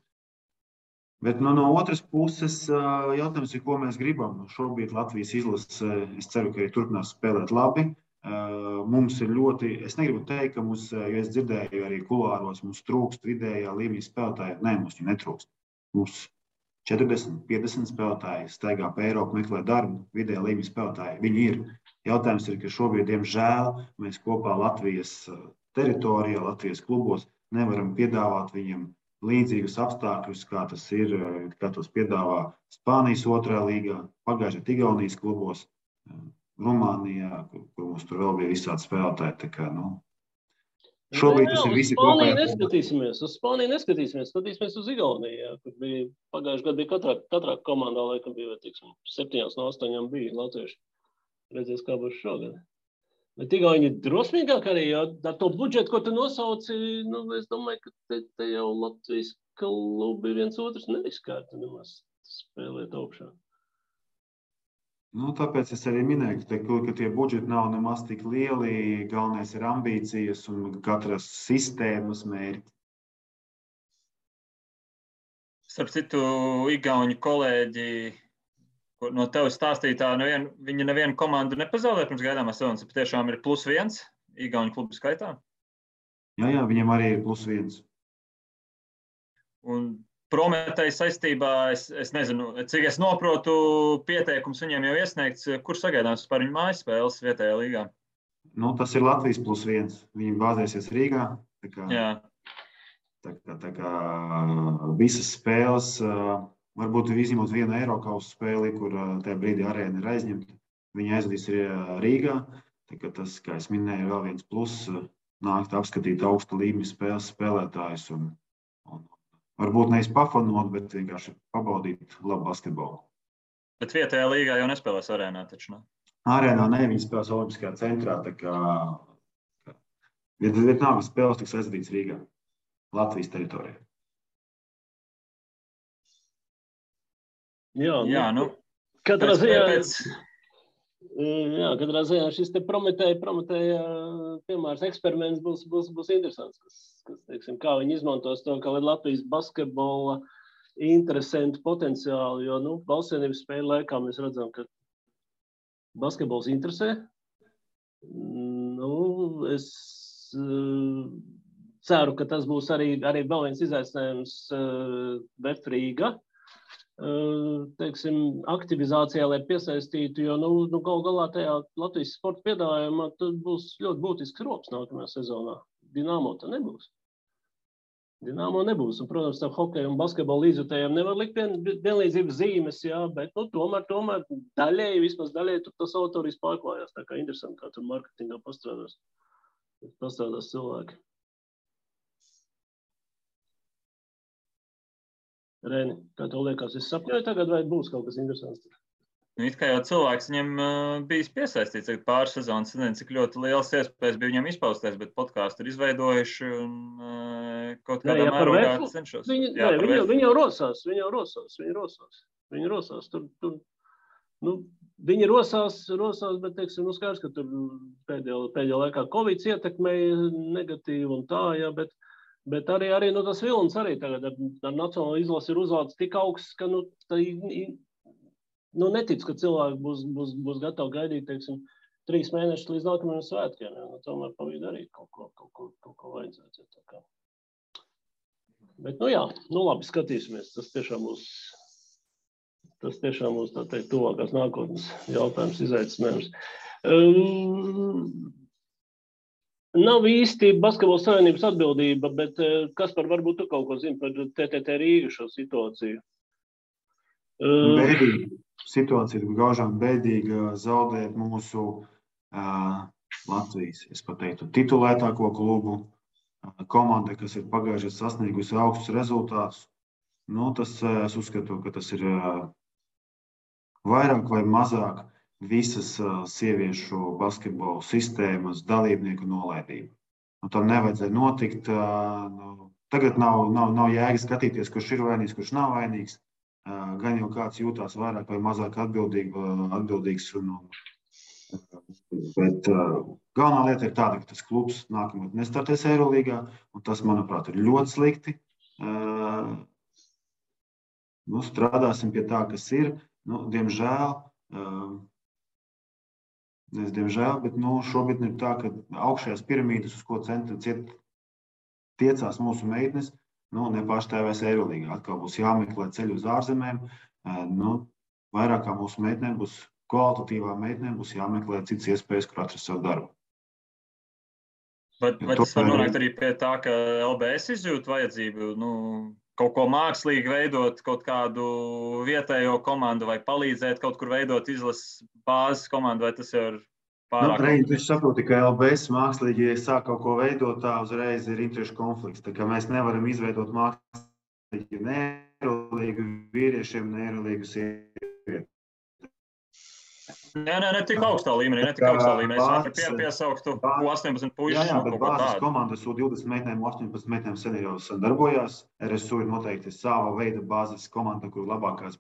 Bet no otras puses jautājums ir, ko mēs gribam. Šobrīd Latvijas izlase, es ceru, ka arī turpinās spēlēt labi. Mums ir ļoti, es negribu teikt, ka mums, jo es dzirdēju arī kulāros, mums trūkst vidējā līmeņa spēlētāji. Nē, mums viņi netrūkst. Mums 40, 50 spēlētāji staigā pa Eiropu, meklē darbu, vidējā līmeņa spēlētāji. Viņi ir. Jautājums ir, ka šobrīd, diemžēl, mēs kopā Latvijas teritorijā, Latvijas klubos nevaram piedāvāt viņiem līdzīgus apstākļus, kā tas ir, kā tos piedāvā Spānijas 2. līgā, pagājušajā Igaunijas klubos, Rumānijā, kur mums tur vēl bija visādi spēlētāji. Tā kā, šobrīd tas ir visi kopējā. Uz Spāniju neskatīsimies, skatīsimies uz Igauniju, kur bija pagājušajā gadā bija katrā komandā, laikam bija, 7 no 8 bija latvieši. Redzēs, kā būs šogad. Bet Igauni ir drosmīgāk arī, jo ar to budžetu, ko tu nosauci, es domāju, ka te jau Latvijas klubi viens otrs neriskētu nemaz spēlēt augšā. Tāpēc es arī minēju, ka tie budžeti nav nemaz tik lieli, galvenais ir ambīcijas un katras sistēmas mērķi. Starp citu, Igauņu kolēģi, no tevis stāstītā, viņi nevienu komandu nepazaudē pirms gaidāmās sezonas, patiešām ir +1 Igauņu klubu skaitā? Jā, viņiem arī ir +1. Un Prometēja saistībā, es nezinu, cik es noprotu, pieteikums viņiem jau iesniegts, kur sagaidāms par viņu mājspēles vietējā līgā? Tas ir Latvijas +1. Viņi bāzēsies Rīgā. Tā kā visas spēles, varbūt izņemot vienu Eirokausa spēli, kur tajā brīdī arēna ir aizņemta, viņi aizvadīs Rīgā. Tā kā tas, kā es minēju, ir vēl viens pluss, nākt apskatīt augsta līmeņa spēles spēlētājus un varbūt nevis pafanot, bet vienkārši pabaudīt labu basketbolu. Bet vietējā līgā jau nespēlēs arēnā, taču ne? Arēnā ne, viņi spēlēs Olimpiskajā centrā, tā kā Vietnāmas spēles tiks aizvadīts Rīgā, Latvijas teritorijā. Jā, katrā ziņā šis te Prometēja piemērs eksperiments būs interesants, kas teiksim, kā viņi izmantos to, kā Latvijas basketbola interesantu potenciālu, jo, Valsts Savienības spēļu laikā mēs redzam, ka basketbols interesē. Es ceru, ka tas būs arī vēl viens izaicinājums VF Rīga. Teiksim, aktivizācijā, lai piesaistītu, jo galu galā tajā Latvijas sporta piedāvājumā būs ļoti būtisks rops nākamajā sezonā. Dinamo tā nebūs. Un, protams, tā hokeja un basketbola līdzjutējiem nevar likt vienlīdzības zīmes, jā, bet tomēr vismaz daļēji tur tas autoris pārklājās. Tā kā interesanti, kā tur marketingā pastrādās cilvēki. Reni, kā tev liekas, es sapņoju tagad, vai būs kaut kas interesants? It kā jau cilvēks viņam bijis piesaistīts pāris sezonas, nezinu, cik ļoti liels iespējas bija viņam izpausties, bet podkāstu ir izveidojuši un kaut kādā mērogā cenšos. Viņi jau rosās. Viņi rosās, bet, teiksim, skaidrs, ka tur pēdējā laikā Covid ietekmēja negatīvi un tā, jā, bet arī tas vilnis arī tagad ar nacionālo izlasi ir uzlādes tik augsts, ka netic, ka cilvēki būs gatavi gaidīt, teiksim, 3 mēnešus līdz nākamajiem svētkiem. Tomēr pa vidu arī kaut ko vajadzētu. Bet, labi, skatīsimies. Tas tiešām būs tā teikt tuvākās nākotnes jautājums, izaicinājums. Nav īsti Basketbola savienības atbildība, bet Kaspar, varbūt tu kaut ko zini par TTT Rīga šo situāciju? Bēdīga. Situācija ir gaužām bēdīga, zaudēt mūsu Latvijas, es pateiktu, titulētāko klubu, komanda, kas ir pagājušajā sasniegusi augstus rezultātus. Es uzskatu, ka tas ir vairāk vai mazāk visas sieviešu basketbola sistēmas dalībnieku nolaidība. Tam nevajadzēja notikt. Tagad nav jēga skatīties, kurš ir vainīgs, kurš nav vainīgs. Gan jau kāds jūtās vairāk vai mazāk atbildīgs. Bet galvenā lieta ir tāda, ka tas klubs nākamgad nestartēs Eirolīgā, un tas, manuprāt, ir ļoti slikti. Strādāsim pie tā, kas ir. Diemžēl, bet šobrīd ir tā, ka augšējās piramīdas, uz ko tiecās mūsu meitnes, nepārstāvēs Eirolīgā. Atkal būs jāmeklē ceļu uz ārzemēm. Vairāk kā mūsu meitnēm būs kvalitatīvām meitnēm, būs jāmeklē citas iespējas, kur atrast savu darbu. Vai tas var nonākt arī pie tā, ka LBS izjūt vajadzību kaut ko mākslīgi veidot, kaut kādu vietējo komandu vai palīdzēt kaut kur veidot izlases bāzes komandu, vai tas jau ir pārāk? Es saprotu, ka LBS mākslīgi, ja sāk kaut ko veidot, tā uzreiz ir interešu konflikts. Tā kā mēs nevaram izveidot mākslīgi ne Eirolīgu vīriešiem, ne Eirolīgu sievietēm. Ne tik augstā līmenī. Es varu piesauktu 18 puišus. Jā, bet bāzes komandas U20 meitnēm, 18 meitnēm sen jau darbojās. RSU ir noteikti sava veida bāzes komanda, kur labākās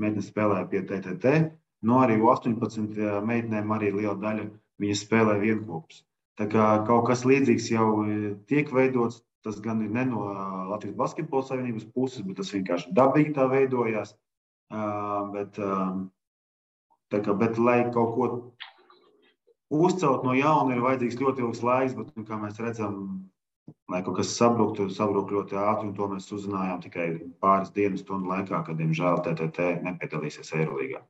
meitnes spēlē pie TTT. Arī U18 meitnēm arī liela daļa viņas spēlē vienkopus. Tā kā kaut kas līdzīgs jau tiek veidots, tas gan ir ne no Latvijas Basketbola savienības puses, bet tas vienkārši dabīgi tā veidojās. Bet, lai kaut ko uzcelt no jauna, ir vajadzīgs ļoti ilgs laiks, bet, kā mēs redzam, lai kaut kas sabruktu ļoti ātri, un to mēs uzzinājām tikai pāris dienas stundu laikā, kad, diemžēl, TTT nepiedalīsies Eirolīgā.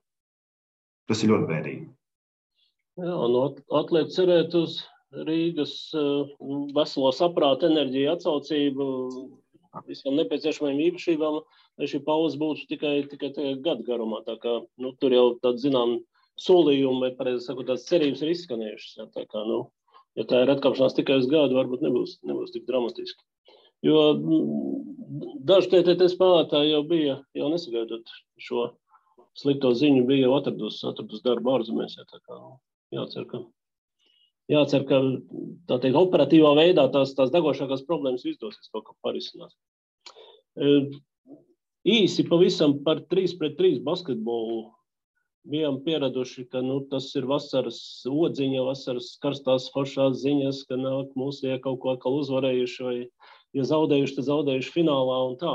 Tas ir ļoti bēdīgi. Jā, atliek cerēt uz Rīgas veselo saprātu, enerģiju, atsaucību, visām nepieciešamajām īpašībām, lai šī pauze būtu tikai gadu garumā. Tā kā, tur jau tāda, zinām, solījumi, vai pareizi sakot, tās cerības ir izskanējušas. Jā, tā kā, ja tā ir atkāpšanās tikai uz gadu, varbūt nebūs tik dramatiski. Jo daži TTT spēlētāji jau nesagaidot šo slikto ziņu, bija jau atradus darbu ārzemēs. Tā kā, jācer, ka tā teikt, operatīvā veidā tās degošākās problēmas izdosies kaut kā parisināt. Īsi pavisam par 3-pret-3 basketbolu. Bijām pieraduši, ka tas ir vasaras odziņa, vasaras karstās foršās ziņas, ka nāk mūsu kaut ko atkal uzvarējuši, vai ja zaudējuši, tad zaudējuši finālā un tā.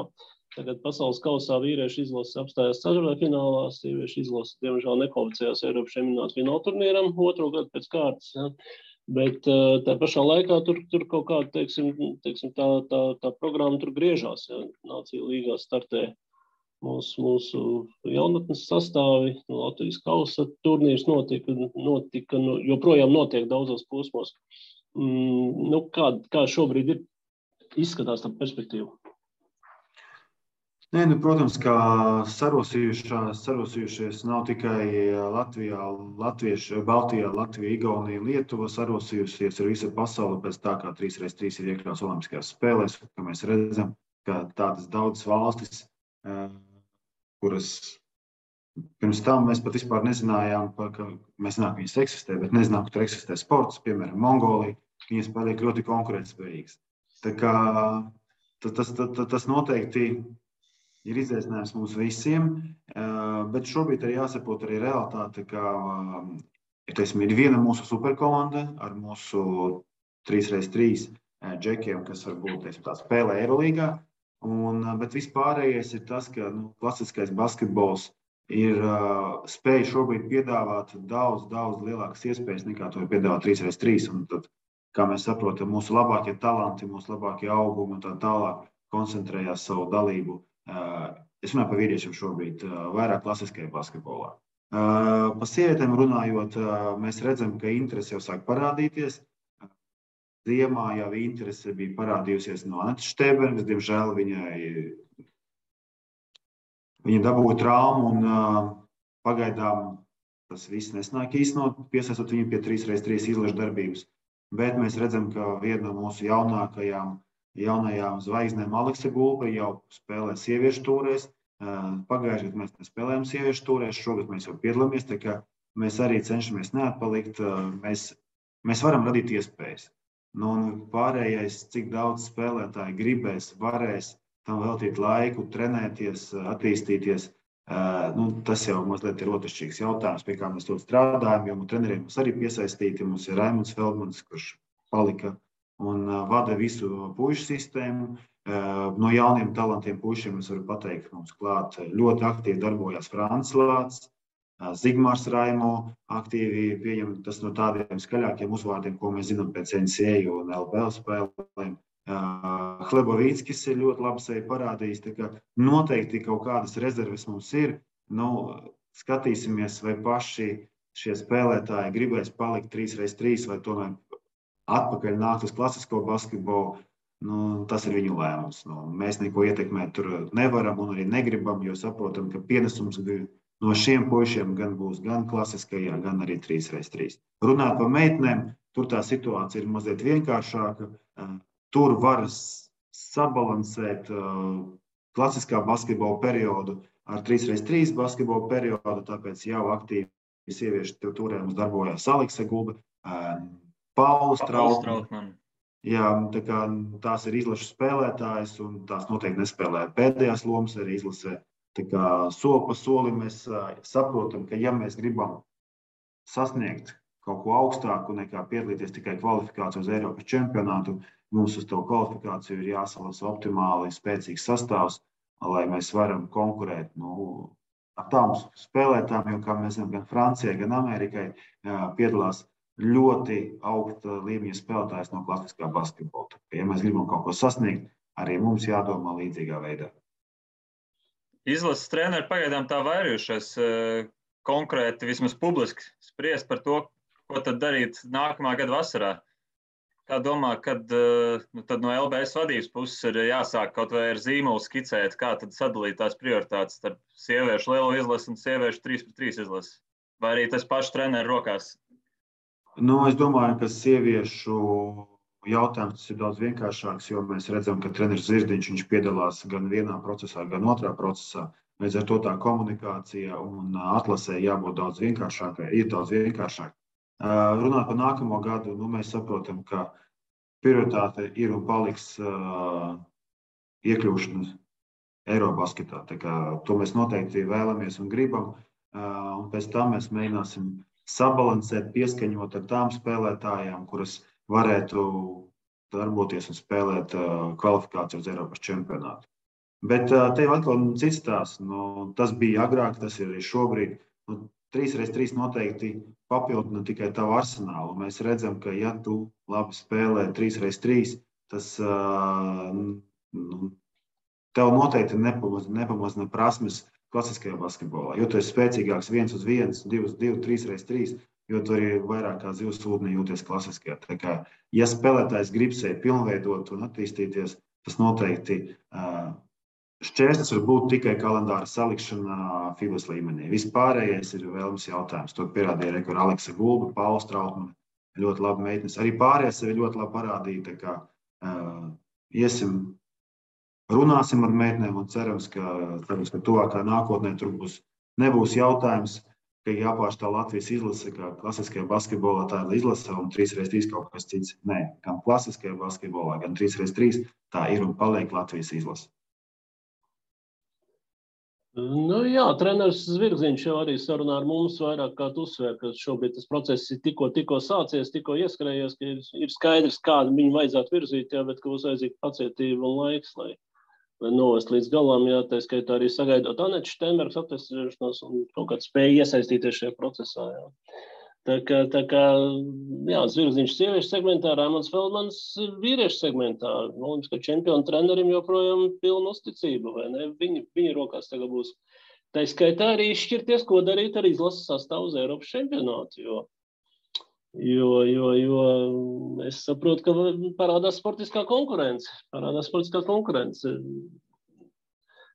Tagad pasaules kausā vīriešu izlases apstājās ceturtfinālā, sieviešu izlases, diemžēl, nekvalificējās Eiropas čempionāta fināla turnīram, otro gadu pēc kārtas. Ja. Bet tā pašā laikā tur kaut kāda, teiksim, tā programma tur griežās. Ja. Nāciju līgā startē mūsu jaunatnes sastāvi, Latvijas kausa turnīrs notika, joprojām notiek daudzos posmos. Kā šobrīd izskatās tā perspektīva? Protams, ka sarosījušies nav tikai Latvijā, Baltijā, Latvija, Igaunija, Lietuva, sarosījusies ir visa pasaule pēc tā, kā 3x3 ir iekļauts olimpiskajās spēlēs, ka mēs redzam, ka tādas daudzas valstis, kuras pirms tam mēs pat vispār nezinājām, ka mēs zinām, ka viņas eksistē, bet nezinām, ka tur eksistē sports, piemēram, Mongolija, viņas paliek ļoti konkurētspējīgas. Tā kā tas noteikti ir izaicinājums mums visiem, bet šobrīd arī jāsaprot arī realitāte, ka ir viena mūsu superkomanda ar mūsu 3x3 džekiem, kas varbūt tā spēlē Eirolīgā, bet vispārējais ir tas, ka klasiskais basketbols ir spēj šobrīd piedāvāt daudz lielākas iespējas nekā to piedāvā 3x3. Un tad, kā mēs saprotam, mūsu labākie talanti, mūsu labākie augumi un tā tālāk koncentrējās savu dalību. Es runāju par vīriešiem šobrīd vairāk klasiskajā basketbolā. Pa sievietēm runājot, mēs redzam, ka interese jau sāk parādīties. Ziemā jau interese bija parādījusies no Anetes Štebergas, diemžēl viņa dabūja traumu un pagaidām tas viss nesnāk īstenot, piesaistot viņu pie 3x3 izlašu darbības. Bet mēs redzam, ka viena no mūsu jaunajām zvaigznēm Aleksa Gulbe jau spēlē sieviešu tūrēs. Pagājušajā gadā mēs nespēlējām sieviešu tūrēs, šogad mēs jau piedalāmies, tā kā mēs arī cenšamies neatpalikt. Mēs varam radīt iespējas. Pārējais, cik daudz spēlētāji gribēs, varēs tam veltīt laiku, trenēties, attīstīties, tas jau mazliet ir otršķirīgs jautājums, pie kā mēs ļoti strādājam, jo treneriem mums arī piesaistīti. Mums ir Raimunds Feldmans, kurš palika un vada visu puišu sistēmu. No jauniem talantiem puišiem es varu pateikt, mums klāt ļoti aktīvi darbojās Francis Lācis, Zigmārs Raimo aktīvi pieņem tas no tādiem skaļākiem uzvārdiem, ko mēs zinām pēc NCAA un LPL spēlēm. Hlebovīckis ir ļoti labi sevi parādījis, tā kā noteikti kaut kādas rezerves mums ir. Skatīsimies, vai paši šie spēlētāji gribēs palikt 3x3 vai tomēr atpakaļ nākt uz klasisko basketbolu. Tas ir viņu lēmums. Mēs neko ietekmēt tur nevaram un arī negribam, jo saprotam, ka pienesums no šiem puišiem gan būs gan klasiskajā, gan arī 3x3. Runāt par meitenēm, tur tā situācija ir mazliet vienkāršāka. Tur var sabalansēt klasiskā basketbola periodu ar 3x3 basketbola periodu, tāpēc jau aktīvi sieviešu turē mums darbojās Aleksa Gulbe, Paula Strautmane. Jā, tā kā tās ir izlašu spēlētājas un tās noteikti nespēlē pēdējās lomas arī izlasē. Tā kā soli pa solim mēs saprotam, ka ja mēs gribam sasniegt kaut ko augstāku nekā piedalīties tikai kvalifikāciju uz Eiropas čempionātu, mums uz to kvalifikāciju ir jāsalasa optimāli spēcīgs sastāvs, lai mēs varam konkurēt ar tām spēlētām, jo, kā mēs zinām, gan Francijai, gan Amerikai piedalās ļoti augsta līmeņa spēlētājs no klasiskā basketbola. Ja mēs gribam kaut ko sasniegt, arī mums jādomā līdzīgā veidā. Izlases treneri pagaidām tā vairījušies konkrēti, vismaz publiski spriest par to, ko tad darīt nākamā gada vasarā. Kā domā, kad tad no LBS vadības puses ir jāsāk kaut vai ar zīmolu skicēt, kā tad sadalīt tās prioritātes starp sieviešu lielo izlasi un sieviešu 3-3 izlasi? Vai arī tas pašu treneru rokās? Es domāju, ka sieviešu jautājums ir daudz vienkāršāks, jo mēs redzam, ka treneris Zirdiņš viņš piedalās gan vienā procesā, gan otrā procesā. Līdz ar to tā komunikācija un atlasē jābūt daudz vienkāršākai, ir daudz vienkāršāk. Runāt par nākamo gadu, mēs saprotam, ka prioritāte ir un paliks iekļūšana Eirobasketā. To mēs noteikti vēlamies un gribam, un pēc tam mēs mēģināsim sabalansēt, pieskaņot ar tām spēlētājām, kuras varētu darboties un spēlēt kvalifikāciju uz Eiropas čempionātu. Bet te atkal cits stāsts. Tas bija agrāk, tas ir arī šobrīd. 3x3 noteikti papildina tikai tavu arsenālu. Mēs redzam, ka ja tu labi spēlē 3x3, tas tev noteikti nepamazina prasmes klasiskajā basketbolā. Jo tu esi spēcīgāks 1-1, 2-2, 3x3, jo tu arī vairāk kā zivs ūdenī jūties klasiskajā. Tā kā, ja spēlētājs grib sevi pilnveidot un attīstīties, tas noteikti šķērslis var būt tikai kalendāra salikšana FIBAS līmenī. Vispārējais ir vēlams jautājums. To pierādīja rekur Aleksa Gulba, Pauls Trautmane, ļoti labi meitenes. Arī pārējais sevi ļoti labi parādīja. Tā kā runāsim ar meitenēm un cerams, ka tuvākā nākotnē tur nebūs jautājums, ka jāpārstāv Latvijas izlase, kā klasiskajā basketbolā tā ir izlase un 3x3 kaut kas cits. Nē, gan klasiskajā basketbolā, gan 3x3 tā ir un paliek Latvijas izlase. Jā, treneris Zvirziņš jau arī sarunā ar mums vairāk kā uzsver, ka šobrīd tas process ir tikko sācies, tikko ieskrējies, ka ir skaidrs, kādu viņu vajadzētu virzīt, bet ka būs vajadzīga pacietība un laiks, lai novest līdz galam, tā skaitā arī sagaidot Aneču Steinbergas atvesļošanos un kaut kādu spēju iesaistīties šajā procesā. Tā kā Zvirziņš sieviešu segmentā, Raimonds Feldmans vīriešu segmentā. Olimpiskā čempiona trenerim joprojām pilna uzticība, vai ne? Viņa rokās tagad būs. Tā skaitā arī izšķirties, ko darīt ar izlases sastāvu uz Eiropas čempionātu, jo es saprotu, ka parādās sportiskā konkurence.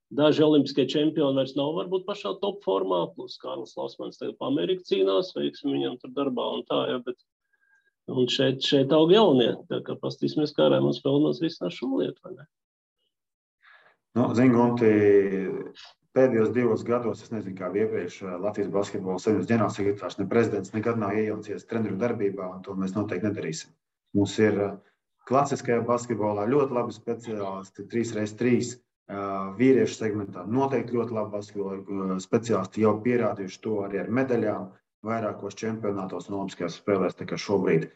Daži olimpiskie čempioni vairs nav varbūt pašā top formā, plus Kārlis Lausmans tagad pa Ameriku cīnās, veiksim viņam tur darbā un tā, un šeit aug jaunie. Tā kā pastīsimies, kā Raimonds Feldmans risinās šo lietu, vai ne? Zini, Gunti, pēdējos 2 gados, es nezinu, kā iepriekš Latvijas basketbola savienības ģenerālsekretārs, ne prezidents nekad nav iejaucies treneru darbībā, un to mēs noteikti nedarīsim. Mums ir klasiskajā basketbolā ļoti labi speciālisti, 3x3 vīriešu segmentā. Noteikti ļoti labi basketbola speciālisti jau pierādījuši to arī ar medaļām vairākos čempionātos un olimpiskajās spēlēs. Tā kā šobrīd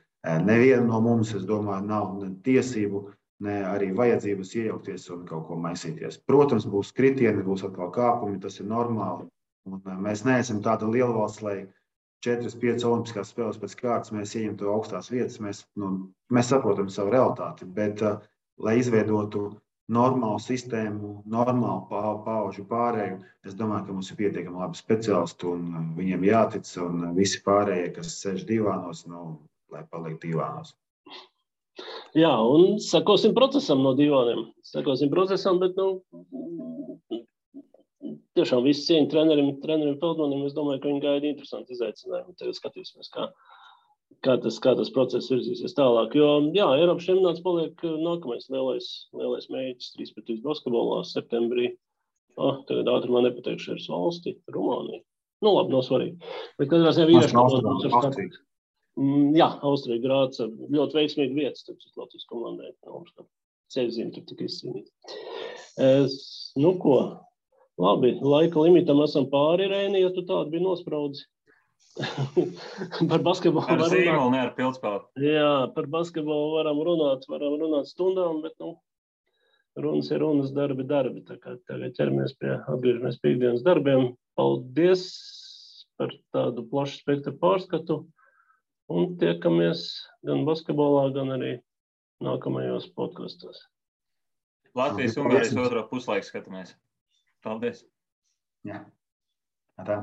neviena no mums, es domāju, nav ne tiesību, ne arī vajadzības iejaukties un kaut ko maisīties. Protams, būs kritieni, būs atkal kāpumi, tas ir normāli. Un mēs neesam tāda liela valsts, lai 4-5 olimpiskās spēles pēc kārtas mēs ieņemtu augstās vietas. Mēs saprotam savu realitāti, bet lai izveidotu normālu sistēmu, normālu paudžu pārēju, es domāju, ka mums ir pietiekami labi speciālisti un viņiem jātic, un visi pārējie, kas sēž divānos, lai paliek divānos. Jā, un sekosim procesam no divāniem. Bet tiešām visi cieņi trenerim Feldmanim, es domāju, ka viņi gaida interesanti izaicinājumu. Tagad skatīsimies, kā tas process virzīsies tālāk. Jo, Eiropas čempionāts paliek nākamais lielais mēģis 3x3 basketbolā septembrī. Tagad ātrumā nepateikšu, ir valsti, Rumānija. Labi, nav svarīgi. Bet katrā ziņā vīriešu Austrija Grāca ļoti veiksmīgi vietas, tad Latvijas komandai. Ceļzīme tur tika izcīnīta. Ko? Labi, laika limitam esam pāri, Rēni, ja tu tādu biji nospraudzi. Par basketbolu ar zīmolu, ne ar pildspēli. Jā, par basketbolu varam runāt stundām, bet runas ir runas, darbi. Tā kā tagad atgriežamies pie ikdienas darbiem. Paldies par tādu plašu spektru pārskatu. Un tiekamies gan basketbolā, gan arī nākamajos podkastos. Latvijas-Ungārijas otro puslaiku skatāmies. Paldies! Jā. Tā.